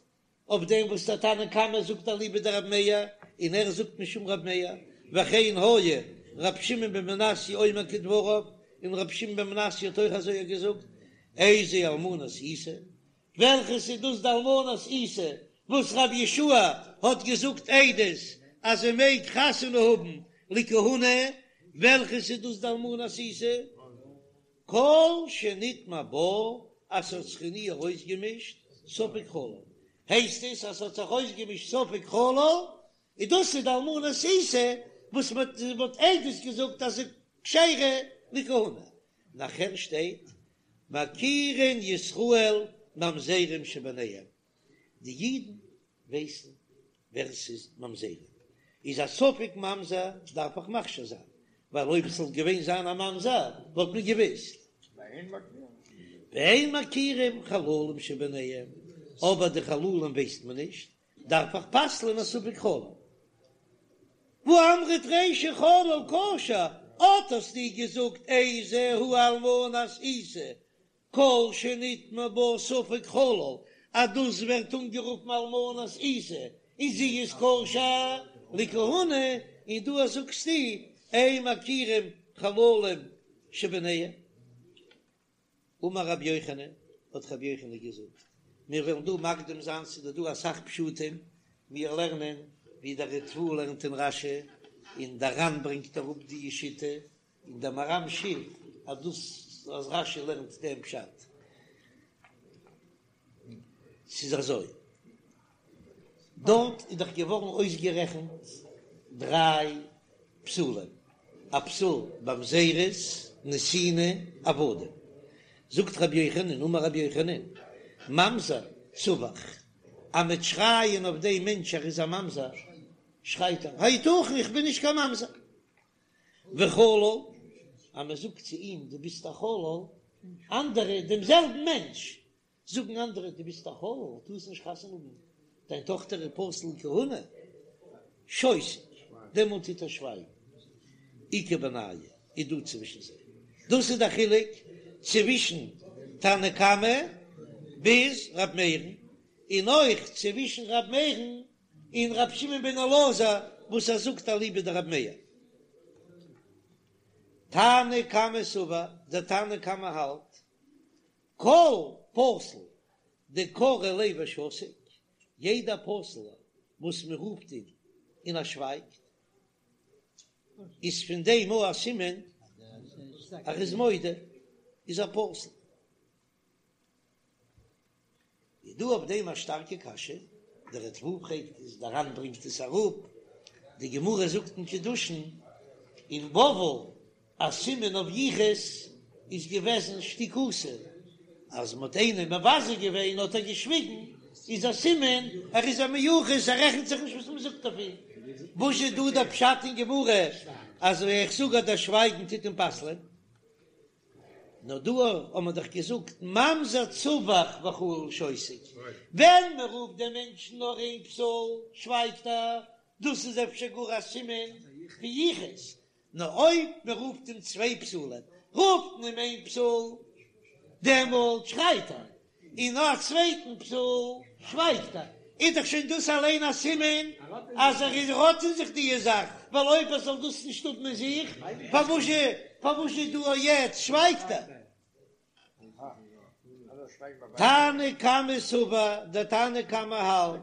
אויף דעם וואס דער תנא קמא זאגט אליבא דרב מאיר, און ער זאגט משום רב מאיר, וכן היה ר' שמעון בן מנסיא אומר כדבריו, און ר' שמעון בן מנסיא האט אויך אזוי געזאגט, איזו אלמנת עיסה, וועלכעס איז דאס די אלמנת עיסה וואס רבי יהושע האט געזאגט עדות אז זי מעג חתונה האבן לכהונה, וועלכעס איז דאס די אלמנת עיסה? כל שנטמע בה אז ס'האט זיך אין איר אויסגעמישט ספק חלל, הייסט עס אז ס'האט זיך אויסגעמישט ספק חלל, און דאס איז די אלמנת עיסה וואס מ'האט עדות געזאגט אז זי כשרה לכהונה. נאכער שטייט מכירין ישראל ממזרים שביניהם, די אידן ווייסן ווער ס'איז ממזרים, איז א ספק ממזר דארף איך מכשיר זיין, ווייל אויב עס זאל געווען זיין א ממזר וואלט מען געוויסט. ואין מכירים חללים שביניהם, אבער די חללים ווייסט מען נישט, דארף איך פסל'ען א ספק חלל. והא אמרת רישא חלל כשר, אט האסטו געזאגט איזו היא אלמנת עיסה, כל שנטמע בה ספק חלל, אז דאס ווערט אנגערופן אלמנת עיסה, און זי איז כשר לכהונה, און דא זאגסטו אין מכירים חללים שביניהם. אמר רבי יוחנן, האט רבי יוחנן געזאגט, מיר וועלן דא מקדים זיין, ס'איז דא אסאך פשטים, מיר לערנען ווי דער ריטב"א לערנט אין רש"י, און דער ר"ן ברענגט אראפ די שיטה, און דער מהר"ם שיף אז דאס אז רש"י לערנט דעם פשט. ס'איז אזוי, דארט איז דאך געווארן אויסגערעכנט דריי פסולים, א פסול ממזרות, נתינה, עבדים. זאגט רבי יוחנן, אמר רבי יוחנן, ממזר צווח, אז מ'וועט שרייען אויף דעם מענטש ער איז א ממזר, שרייט ער, היתכן איך בין נישט קיין ממזר. וחלל, אז מען זאגט צו אים דו ביסט א חלל, אנדערע דעם זעלבן מענטש זאגן אנדערע דו ביסט א חלל, טארסט נישט חתונה האבן, דיין טאכטער איז פסול לכהונה, שותק, דעמאלט טוט ער שווייגן, איכא בינייהו איז דא צווישן זיי, דאס איז דער חילוק צווישן תנא קמא ביז ר' מאיר'ן, און אויך צווישן ר' מאיר'ן און ר' שמעון בן אלעזר וואס ער זאגט אליבא דר' מאיר. תנא קמא סבר, דער תנא קמא האלט, כל פסול דקרו ליה ושתיק, יעדער פסול וואס מען רופט אים און ער שווייגט, איז פון דעם אויך א סימן אז ער איז מודה, איז ער פסול. איז דא אויף דעם א שטארקע קשיא, דער ריטב"א פרעגט עס, דער ר"ן ברענגט עס אראפ, די גמרא זאגט אין קידושין אין בבל א סימן אויף יחוס איז געוועזן שתיקותא, אז מ'האט איינעם מבזה געווען האט ער געשוויגן, איז א סימן ער איז א מיוחס ער רעכנט זיך נישט וואס מ'זאגט אויף אים. וואס איז דא דער פשט אין גמרא אז איך זאג אז דער שווייגן טוט אים פסל'ען? נאר דא האט מען דאך געזאגט ממזר צווח וחלל שותק, ווען מען רופט דעם מענטשן נאר איין פסול שווייגט ער, דאס איז אפשר גאר א סימן פון יחוס, נאר אויב מען רופט אים צוויי פסולים, רופט מען אים איין פסול, דעמאלט שרייט ער, און נאך א צווייטן פסול שווייגט ער, איז דאך שוין דאס אליין א סימן אז ער איז האט אין זיך די זאך, ווייל אויב ער זאל דאס נישט האבן אין זיך, פארוואזשע פארוואזשע דא יעצט שווייגט ער? תנא קמא סבר, דער תנא קמא האלט,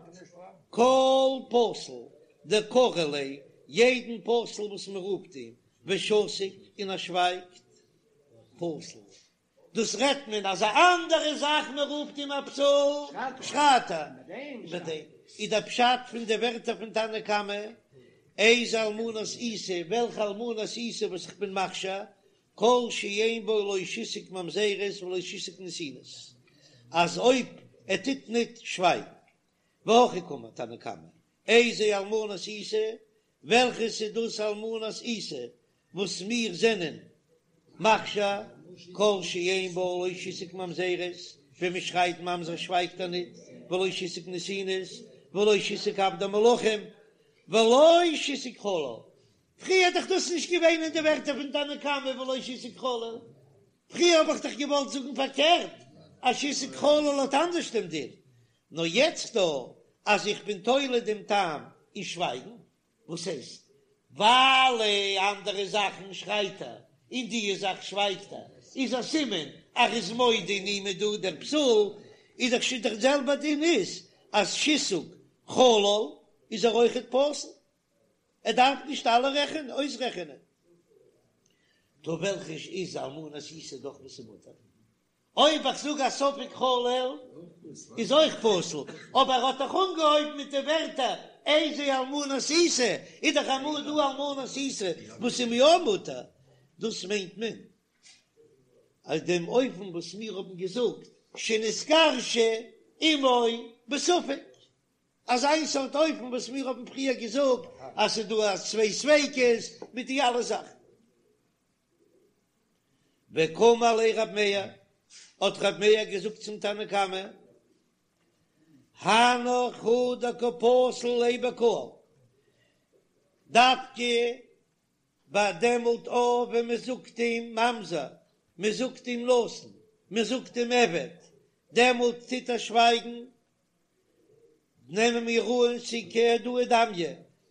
כל פסול דקרו ליה, יעדן פסול וואס מען רופט אים, ושתיק און ער שווייגט, פסול. דאס רעדט מען אז א אנדערע זאך מען רופט אים א פסול שרייט ער איבער דעם איז דער פשט פון די ווערטער פון תנא קמא איזה אלמנת עיסה וועלכע אלמנת עיסה וואס איך בין מכשיר כל שאין בו לא שיתוק ממזרות ולא שיתוק נתינות אז אויב ער טוט ניט שווייגן והכי קאמר תנא קמא איזה אלמנת עיסה וועלכעס איז דאס אלמנת עיסה וואס מיר זענען מכשיר כל שאין בו לא שיתוק ממזרות, ווען מען שרייט ממזר שווייגט ער ניט, ולא שיתוק נתינות, ולא שיתוק עבדי מלכים, ולא שיתוק חלל. פריער איז דאך דאס נישט געווען אין די ווערטער פון תנא קמא ולא שיתוק חלל, פריער האב איך דאך געוואלט זאגן פארקערט אז שיתוק חלל האט אנדערש דעם דין, נאר יעצט דא אז איך בין תולה דעם טעם אין שווייגן, וואס הייסט? ווייל אנדערע זאכן שרייט ער, און די זאך שווייגט ער, איז א סימן אז ער איז מודה אין אים איז דא דער פסול, איז דאך שוין דער זעלבער דין איז אז שיתוק חלל איז ער אויכעט פסול, ער דארף נישט אלע רעכענען אויסרעכענען. טא וועלכע איז אלמנת עיסה דאך וואס איז מותר? אויב איך זאג א ספק חלל איז אויך פסול, אבער ער האט דאך אנגעהויבן מיט די ווערטער איזה אלמנת עיסה, איז דאך אמאל דא אלמנת עיסה וואס איז יא מותר, דאס מיינט מען אז דעם אופן וואס מיר האבן געזאגט שנתגרשה אמו בספק, אזא איין סארט אופן וואס מיר האבן פריער געזאגט אז ס'איז דא צוויי ספיקות מיט די אלע זאכן. וקאמר ליה רב מאיר, האט רב מאיר געזאגט צום תנא קמא, הנך הוא דקא פסיל ליה בקהל, דווקא ביי דעמאלט אויך ווען מען זאגט אים ממזר, מען זאגט אים נתין, מען זאגט אים עבד, דעמאלט טוט ער שווייגן, נעמען מיר אן ס'איז כהודאה דמיא,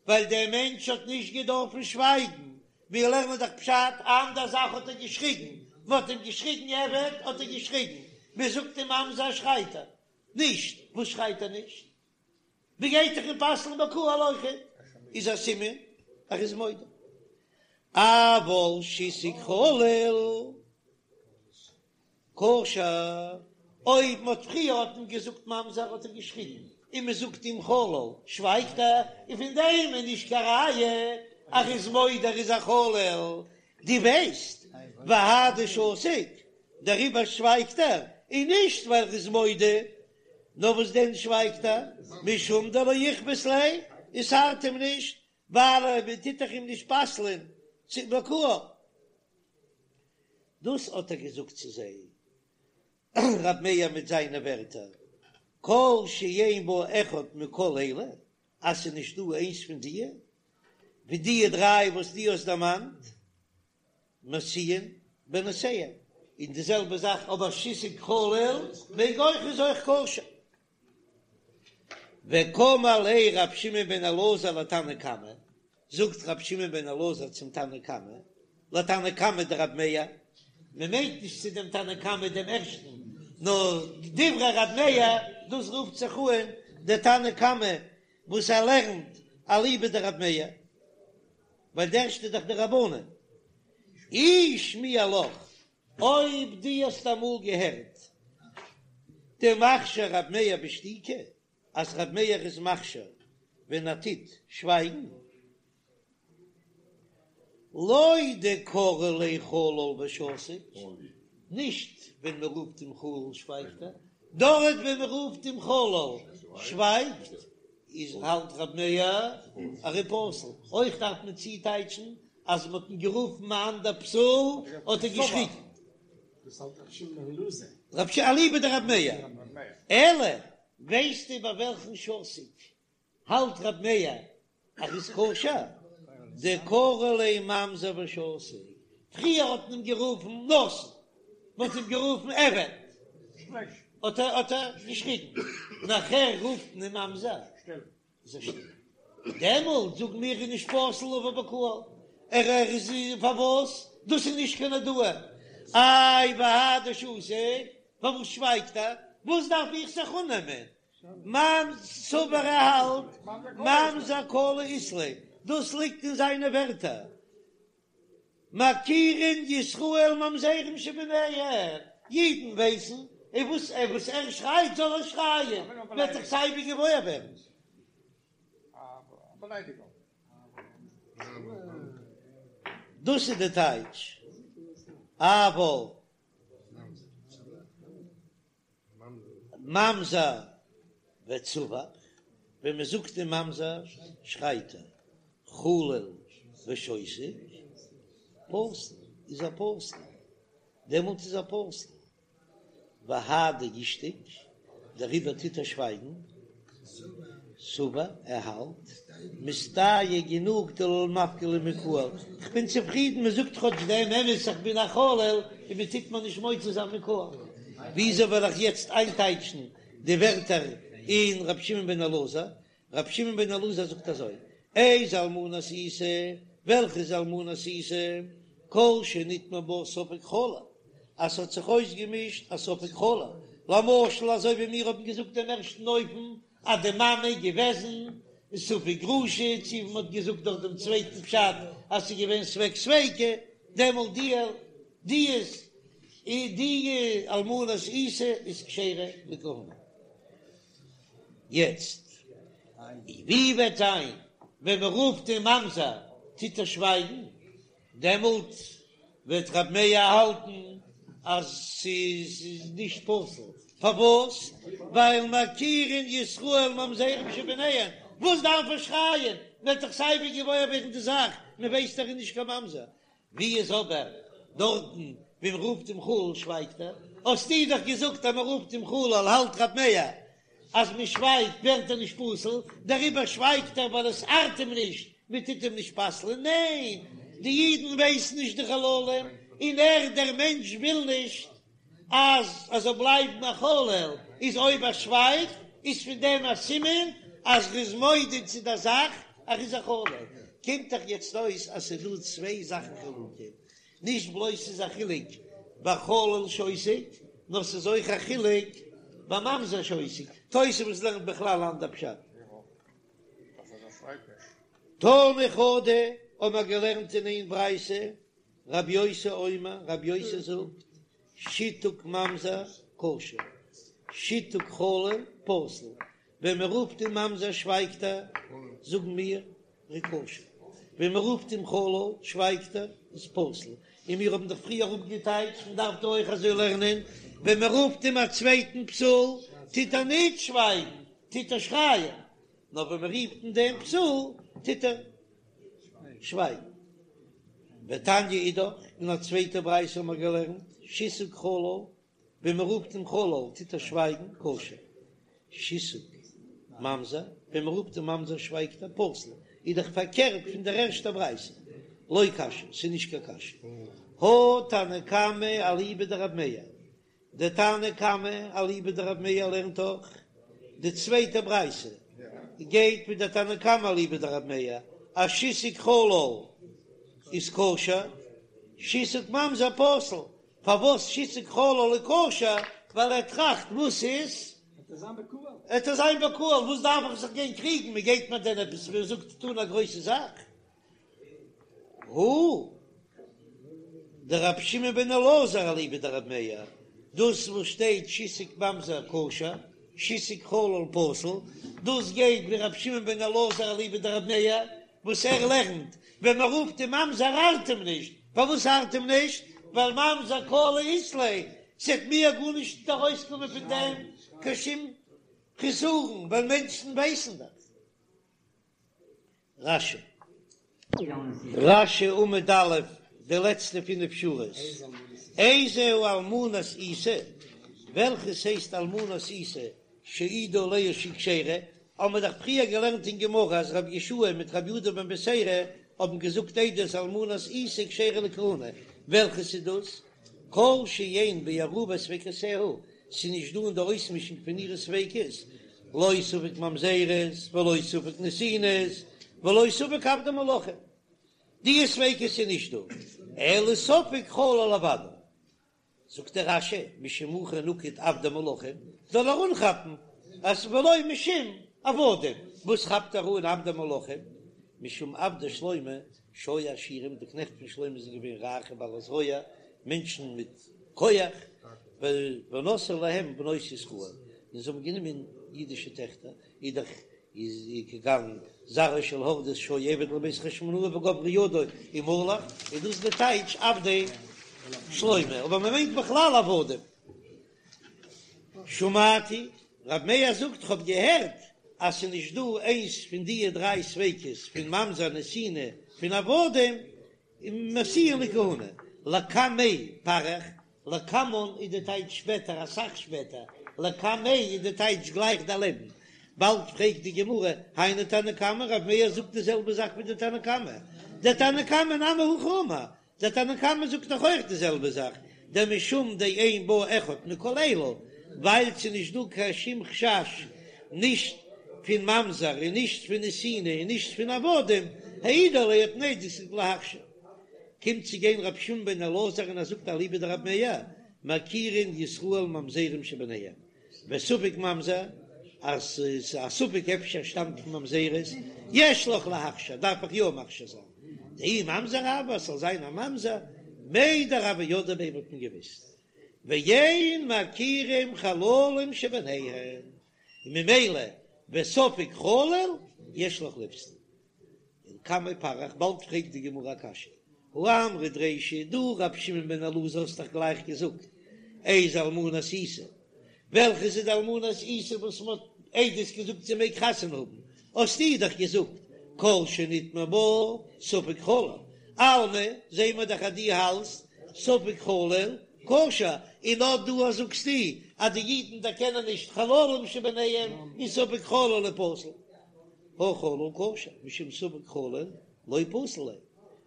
ווייל דער מענטש האט נישט געדארפן שווייגן, מיר לערנען דאך פשט, אנדער זאך האט ער געשריגן, מען האט אים געשריגן עבד האט ער געשריגן, מען זאגט אים ממזר שרייט ער נישט, וואס שרייט ער נישט? מען גייט דאך אים פסל'ן בקהל אויכעט, איז א סימן ער איז מודה. אבל שיתוק חלל. כשר, אויב מ'האט פריער האט מען געזאגט ממזר האט ער געשריגן, און מ'זאגט אים חלל שווייגט ער, און פון דעם איז נישט קיין ראיה אז ער איז מודה ער איז א חלל, דו ווייסט והאי דשתיק, דעריבער שווייגט ער, און נישט ווייל ער איז מודה, נאר וואס דען שווייגט ער? משום דלא איכפת ליה, עס ארט אים נישט, ווייל מען טוט דאך אים נישט פסל'ען צו בקהל. דאס האט ער געזאגט צו זיי, רב מאיר מיט זיינע ווערטער, כל שאין בו אחד מכל אלה, אז ס'איז נישט דא איינס פון דיע, ווי דיע דריי וואס דו האסט דערמאנט, משיאין בנותיהם, און די זעלבע זאך אבער שיתוק חלל מעג אויך איז אויך כשר. וקאמר ליה רב שמעון בן אלעזר לתנא קמא, זאגט רב שמעון בן אלעזר צום תנא קמא, לתנא קמא דרב מאיר, מען מיינט נישט צו דעם תנא קמא דעם ערשטן, נאר דברי רב מאיר, דאס רופט זיך אן דער תנא קמא וואס ער לערנט אליבא דרב מאיר, ווייל דער ערשטע איז דאך די רבנן. אי שמיע לך, אויב דו האסט אמאל געהערט. דמכשיר רב מאיר בשתיקה, אז רב מאיר איז מכשיר ווען ער טוט שווייגן, לא דקרו ליה חלל ושתיק, נישט ווען מען רופט אים חלל שווייגט ער, דארט ווען מען רופט אים חלל שווייגט, איז האלט רב מאיר אז ער איז פסול, אויך דארף מען צוטייטשן אז מען האט אים גערופן א אנדער פסול האט ער געשריגן. דאס האלט רבי שמעון בן אלעזר. רב ש אליבא דרב מאיר. אלא ווייסטו ביי וועלכן שתיק האלט רב מאיר אז איז כשר? דקרו ליה ממזר ושתיק. פריער האט מען אים גערופן נתין, מען האט אים גערופן עבד, האט ער האט ער געשריגן, נאכער רופט מען אים ממזר. איז ער שטיל. דעמאלט זאגן מיר איז נישט פסול לבא בקהל, ער ער איז פארוואס? דאס איז נישט קיין הודאה. איי והאי דשתיק, פארוואס שווייגט ער? וואס דארף איך זיך אננעמען? ממ סבר ער האלט ממזר קלא אית ליה, דאס ליגט אין זיינע ווערטער. מכירין ישראל ממזרים שביניהם, אידן ווייסן, און וואס ער וואס ער שרייט זאל ער שרייען, וועט דאך סייווי געוואויר ווערן. דאס איז די טייטש, אבל. ממזר וצווח, ווען מען זאגט אים ממזר שרייט ער, חלל ושותק, פסול, איז ער פסול, דעמאלט איז ער פסול, והאי דאישתיק, דעריבער טוט ער שווייגן, סבר, ער האלט, מיסתייעא גענוג דלא למפקי לי מקהל, כ'בין צופרידן מען זאגט כאטש דעם אמת איך בין א חלל און מען טוט מיר נישט מוציא זיין מקהל. וויאזוי וועל איך יעצט איינטייטשן די ווערטער אין ר' שמעון בן אלעזר? ר' שמעון בן אלעזר זאגט אזוי, איזו אלמנת עיסה, וועלכע איז אלמנת עיסה? כל שנטמע בה ספק חלל, אז ס'האט זיך אויסגעמישט א ספק חלל, למשל אזוי ווי מיר האבן געזאגט דעם ערשטן אופן אז די מאמע איז געוועזן ספק גרושה, צו ווי מ'האט געזאגט דאך דעם צווייטן פשט אז ס'איז געווען ספק ספיקא, דעמאלט די די איז די אלמנת עיסה איז כשרה לכהונה. יעצט ווי וועט זיין ווען מ'רופט אים ממזר טוט ער שווייגן? דעמאלט וועט רב מאיר האלטן אז ס'איז נישט פסול, פארוואס? ווייל מכירין ישראל ממזרים שביניהם, וואס דארף ער שרייען, מ'וועט דאך סייווי געוואויר ווערן די זאך, מ'ווייסט ער איז נישט קיין ממזר, ווי איז אבער דארטן ווי מ'רופט אים חלל שווייגט ער, האסטו דאך געזאגט אז מ'רופט אים חלל האלט רב מאיר אז מען שווייגט ווערט ער נישט פסול, דעריבער שווייגט ער ווייל עס ארט אים נישט, מען טוט אים נישט פסל'ען, ניין, די אידן ווייסן נישט די חללים, און ער דער מענטש וויל נישט אז ער זאל בלייבן א חלל, איז אויב ער שווייגט איז פון דעם א סימן אז ער איז מודה צו דער זאך אז ער איז א חלל, קומט דאך יעצט אויס אז ס'איז דא צוויי זאכן חילוקים, נישט בלויז ס'איז א חילוק ביי חלל שותק, נאר ס'איז אויך א חילוק ביי ממזר שותק. תוספות לערנט בכלל אנדער פשט. תנא חדא האבן מיר געלערנט אין איין ברייתא, רבי יוסי אומר, רבי יוסי זאגט, שיתוק ממזר כשר, שיתוק חלל פסול. ווען מען רופט אים ממזר שווייגט ער, זאגן מיר ער איז כשר, ווען מען רופט אים חלל שווייגט ער, איז פסול, און מיר האבן דאך פריער אפגעטייטשט, מען דארף דא אויך אזוי לערנען, ווען מען רופט אים א צווייטן פסול טוט ער נישט שווייגן, טוט ער שרייען, נאר ווען מען רופט אים דעם פסול טוט ער שווייגן. ותניא אידך, אין א צווייטע ברייתא האבן מיר געלערנט, שיתוק חלל ווען מען רופט אים חלל טוט ער שווייגן, כשר. שיתוק ממזר, ווען מען רופט אים ממזר שווייגט ער, פסול. איז דאך פארקערט פון דער ערשטער ברייתא. לא קשיא, ס'איז נישט קיין קשיא. הא תנא קמא אליבא דרב מאיר, דער תנא קמא אליבא דרב מאיר לערנט דאך די צווייטע ברייתא גייט מיט דער תנא קמא אליבא דרב מאיר אז שיתוק חלל איז כשר, שיתוק ממזר פסול, פארוואס שיתוק חלל איז כשר? ווייל ער טראכט וואס איז? וועט ער זיין בקהל, וואס דארף איך זיך גיין קריגן, מען גייט מיר דען עפעס ווי ער זאגט טון א גרויסע זאך? הא דרבי שמעון בן אלעזר אליבא דרבי מאיר. דאס וואס שטייט שיתוק ממזר כשר, שיתוק חלל פסול, דאס גייט ווי רבי שמעון בן אלעזר אליבא דרבי מאיר, וואס ער לערנט ווען מען רופט אים ממזר ארט אים נישט, פארוואס ארט אים נישט? ווייל ממזר קלא אית ליה, ס'עט מיר גארנישט ארויסקומען פון דעם קיין שום חסרון, ווייל מענטשן ווייסן דאך. רש"י. רש"י עמוד א', די לעצטע פינף שורות, איזהו אלמנת עיסה, וועלכעס הייסט אלמנת עיסה שהעידו עליה שהיא כשרה, האבן מיר דאך פריער געלערנט אין גמרא אז רבי יהושע מיט רבי יהודה בן בתירא האבן געזאגט עדות אלמנת עיסה כשרה לכהונה, וועלכעס איז דאס? כל שאין בערובת ספיקותיה, ס'איז נישט דא אין די אויסמישונג פון אירע ספיקות, לא ספק ממזרות ולא ספק נתינות ולא ספק עבדי מלכים, די ספיקות איז נישט דא, אלא ספק חלל לוודאי. זאגט דער רש"י, משום הכי נקט עבדי מלכים, זאל ער אנכאפן אז ולא משום עבדים, וואס כאפט ער אן עבדי מלכים? משום עבדי שלמה שהיו עשירים, די קנעכט פון שלמה זענען געווען רייכע בעלי זרוע, מענטשן מיט כח, ונשאו להם בנות ישראל, און זיי האבן גענומען אידישע טעכטער, איז דאך איז כגון זרעו של הורדוס שהיה עבד לבית חשמונאי וגברה ידו ומלך, איז דאס די טייטש עבדי שלמה, אבער מען מיינט בכלל עבדים. שמעתי, רב מאיר זאגט כ'האב געהערט אז ס'איז נישט דא איינס פון דיע דריי ספיקות פון ממזר נתינה פון עבדים משיאין לכהונה, לקמיה פריך, לקמן איז די טייטש שפעטער אסאך שפעטער, לקמיה איז די טייטש גלייך דערלעבן, באלד פרעגט די גמרא, היינו תנא קמא, רב מאיר זאגט די זעלבע זאך ווי די תנא קמא, דתנא קמא נמי הכי אמר, דער תנא קמא זאגט דאך אויך די זעלבע זאך, דמשום דאין בה אחד מכל אלו, ווייל ס'איז נישט דא קיין שום חשש נישט פון ממזר און נישט פון נתינה און נישט פון עבדים, העידו עליה האט מען עדות געזאגט להכשיר. קומט צו גיין רבי שמעון בן אלעזר און ער זאגט אליבא דרבי מאיר, מכירין ישראל ממזרים שביניהם, וספק ממזר, אז ס'איז א ספק אפשר שטאמט פון ממזרות, יש לך להכשיר, דארף איך יא מכשיר זיין, דאי ממזר הוה, אז ס'זאל זיין א ממזר, מידע הוו ידעי ביה וואלט מען געוויסט, ואין מכירים חללים שביניהם, און ממילא וספק חלל יש לך לפסול. ולקמיה פריך, באלד פרעגט די גמרא א קשיא, הא אמרת רישא, דו רבי שמעון בן אלעזר האסט דאך גלייך געזאגט איזו אלמנת עיסה, וועלכע איז די אלמנת עיסה וואס מען האט עדות געזאגט זי מעג חתונה האבן, האסטו דאך געזאגט כל שנטמע בה ספק חלל, אלמא זעהן מיר דאך אז דו האלטסט ספק חלל כשר, און אט דא זאגסטו אז די אידן דערקענען נישט חללים שביניהם און ספק חלל איז פסול. הא חלל כשר, משום ספק חלל לא פסיל ליה.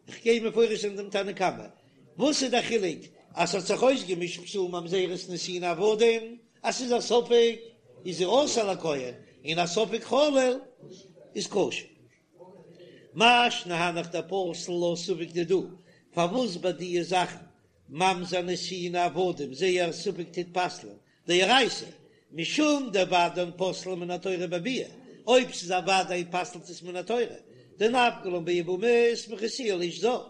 איך גיי מפרש זיין דעם תנא קמא. וואס איז דער חילוק אז ס'האט זיך אויסגעמישט פסול ממזרות נתינה עבדים, אז ס'איז א ספק איז זי אסור לכהן, און א ספק חלל איז כשר. מאי שנא הנך דפסל לה ספק דידה, פארוואס ביי דיע זאכן ממזר נתינה עבדים זייער ספק טוט פסל'ען דאורייתא, משום דודאין פוסלין מן התורה בביאה, אויב ס'איז א ודאי פסל'ט עס מן התורה, דנפקא לן ביבמות מכיסוה לאיש זר,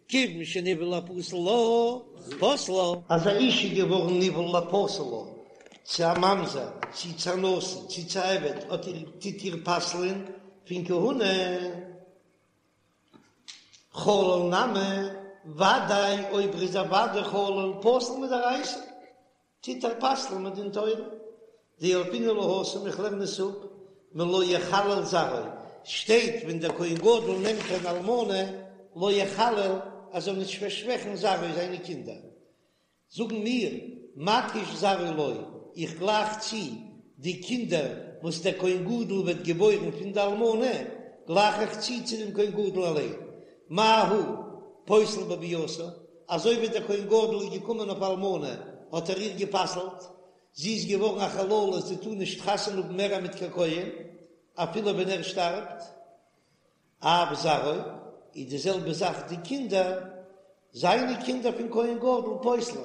כיוון שנבעלה לפסול לה, פסלה. אז א אישה איז געווארן נבעל לפסול לה, צו א ממזר, צו צו א נתין, צו צו א עבד, האט איר טוט איר פסל'ען פון כהונה. חלל נמי, ודאי אויב ער איז א ודאי חלל פסול מדאורייתא, טוט ער פסל'ן מדין תורה. דילפינן לה התם איך לערן עס אפ מלא יחלל זרעו, שטייט ווען דער כהן גדול נעמט אן אלמנה לא יחלל אז זאל נישט פארשוועכן זרעו זיינע קינדער, זאגן מיר, מקיש זרעו לו, איך גלייך צו די קינדער וואס דער כהן גדול וועט געבוירן פון די אלמנה, גלייך איך צו צו דעם כהן גדול אליין, מה הוא פוסל בביאתה, אזוי ווי דער כהן גדול איז געקומען אויף אלמנה האט ער איר גע'פסל'ט, זי איז געווארן א חללה, זי טאר נישט חתונה האבן מער מיט קיין כהן, אפילו ווען ער שטארבט. אף זרעו, איז די זעלבע זאך די קינדער, זיינע קינדער פון כהן גדול פוסלין,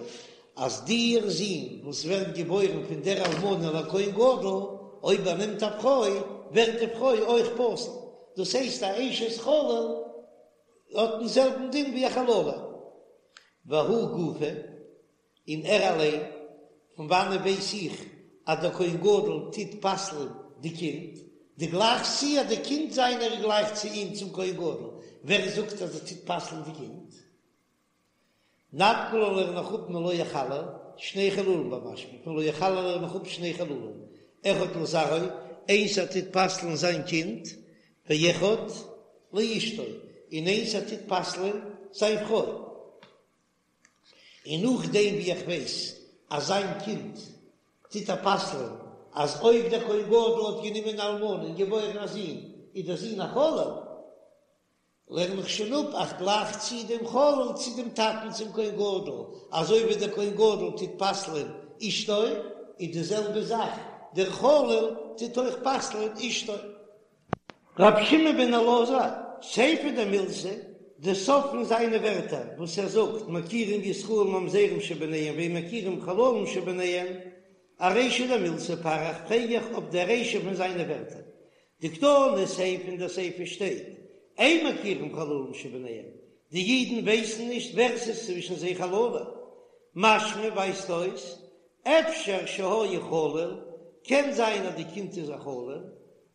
אז דער זון וואס ווערט געבוירן פון דער אלמנה לכהן גדול, אויב ער נעמט א פרוי, ווערט די פרוי אויך פסול, דאס הייסט א אשת חלל האט דעם זעלבן דין ווי א חללה. והוא גופא, און ער אליין. פון וואנען ווייס איך אז דער כהן גדול טוט פסל'ן די קינד? דו גלייכסט צו אז די קינד זיינער איז גלייך צו אים צום כהן גדול, ווער זאגט אז ער טוט פסל'ן די קינד? נפקא לן לערן איך אפ מלא יחלל שני חללים במשמע פון לא יחלל לערן איך אפ שני חללים אחד לזרעו איינס ער טוט פסל'ן זיין קינד ואחד לאשתו און איינס ער טוט פסל'ן זיין פרוי און נאכדעם ווי איך ווייס אז זיין קינד טוט ער פסל'ן אז אויב דער כהן גדול האט גענומען אן אלמנה און געבוירן א זון איז דער זון א חלל לערן איך שוין אפ איך גלייך צו דעם חלל צו דעם טאטן צום כהן גדול, אזוי ווי דער כהן גדול טוט פסל'ען אשתו, איז די זעלבע זאך דער חלל טוט אויך פסל'ען אשתו. רבי שמעון בן אלעזר, סיפא דמילתא, די סוף פון זיינע ווערטער וואס ער זאגט מכירים ישראל ממזרים שביניהם ואין מכירים חללים שביניהם, ארישא דמילתא פריך פרעג איך אויף די רישא פון זיינע ווערטער, דקתני סיפא אין דער סיפא שטייט, אין מכירים חללים שביניהם, די אידן ווייסן נישט ווער ס'איז צווישן זיי חללים, משמע ווייזט אויס, אפשר שהיה חלל, קען זיין אז די קינד איז א חלל,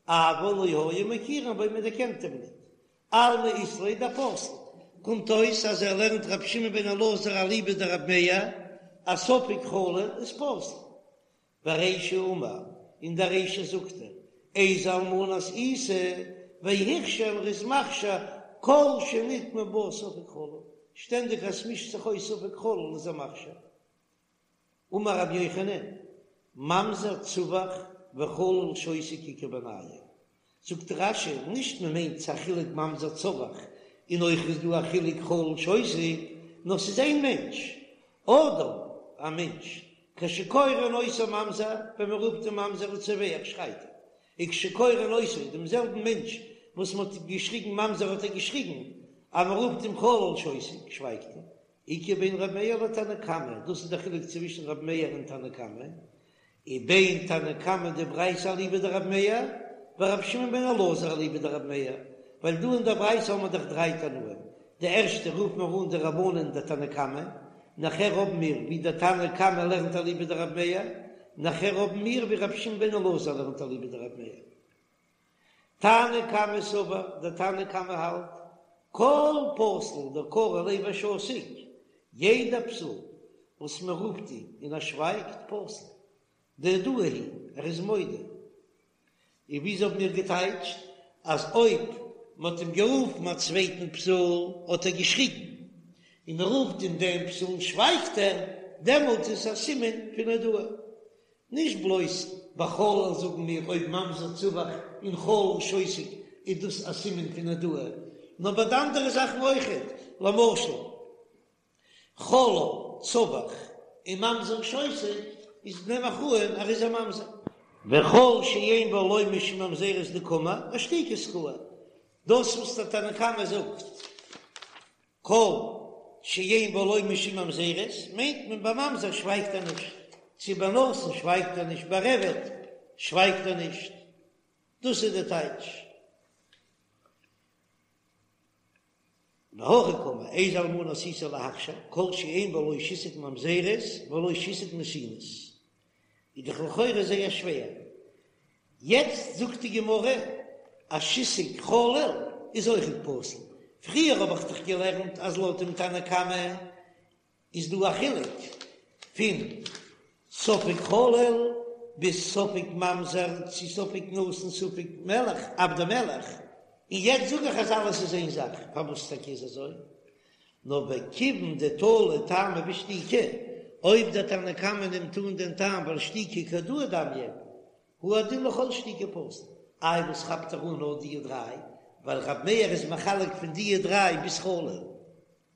אבל לא היו מכירים בו מען דערקענט אים ניט, אלמא אית ליה דפסיל, קומט אויס אז ער לערנט רבי שמעון בן אלעזר אליבא דרבי מאיר אז ספק חלל איז פסול. ורישא אמר, אין דער רישא זאגט ער, איזה אלמנת עיסה, והכשיר ער איז מכשיר כל שנטמע בה ספק חלל, שטענדיג אז ס'מישט זיך אויס ספק חלל איז ער מכשיר. אמר רבי יוחנן, ממזר צווח וחלל שותק איכא בינייהו, זאגט רש"י, נישט מען מיינט ס'א חילוק ממזר צווח און אויך איז דא א חילוק חלל שותק, נאר ס'איז איין מענטש, אדם, א מענטש, כשקורין אותו ממזר, ווען מען רופט אים ממזר הוא צווח שרייט ער, וכשקורין אותו, דעם זעלבן מענטש וואס מען האט געשריגן ממזר האט ער געשריגן, אז מען רופט אים חלל שותק שווייגט ער, איכא בין ר' מאיר לתנא קמא, דאס איז דער חילוק צווישן ר' מאיר און תנא קמא, ובין תנא קמא דברייתא אליבא דרבי מאיר, ורבי שמעון בן אלעזר אליבא דרבי מאיר, ווייל דא אין דער ברייתא האבן מיר דאך דריי תנאים, די ערשטע רופן מיר אן די רבנן די תנא קמא, נאכער האבן מיר ווי דער תנא קמא לערנט אליבא דרבי מאיר, נאכער האבן מיר ווי רבי שמעון בן אלעזר לערנט אליבא דרבי מאיר. תנא קמא סבר, דער תנא קמא האלט, כל פסול דקרו ליה ושתיק, יעדע פסול וואס מען רופט אים און ער שווייגט, פסול, דהודאה היא, ער איז מודה. און וויאזוי האבן מיר געטייטשט אז אויב מען האט אים גערופן א צווייטן פסול האט ער געשריגן, און מען רופט אים דעם פסול שווייגט ער, דעמאלט איז עס א סימן פון הודאה. נישט בלויז ביי חלל זאגן מיר אויב ממזר צווח און חלל שותק איז דאס א סימן פון הודאה, נאר ביי די אנדערע זאכן אויכעט, למשל חלל צווח און ממזר שותק איז נעם איך אן ער איז א ממזר. וכל שאין בו לא משום ממזרות דקאמר אשתיקה שכרה, דאס וואס דער תנא קמא זאגט כל שאין בו לא משום ממזרות, מיינט מען ביי ממזר שווייגט ער נישט, צו ביי נתין שווייגט ער נישט, ביי עבד שווייגט ער נישט, דאס איז די טייטש. והכי קאמר, איזה אלמנה עשית להכשיר, כל שאין בו לא שיתוק ממזרות ולא שיתוק נתינות, איז דאך לכאורה זייער שווער, יעצט זאגט די גמרא אז שיתוק חלל איז אויכעט פסול, פריער האב איך דאך געלערנט אז לויט דעם תנא קמא איז דא א חילוק פון ספק חלל ביז ספק ממזר צו ספק נתין ספק מלך עבדי מלך, און יעצט זאג איך אז אלעס איז איין זאך, פארוואס טאקע איז אזוי? נאר וכיוון דתלי טעמא בשתיקה, אויב דער תנא קמא נעמט אן דעם טעם ווייל שתיקה כהודאה דמיא, הוא הדין לכל שתיקה פסול. איי וואס כאפט ער אן נאר דיע דריי? ווייל רב מאיר איז מחלק פון דיע דריי ביז חלל.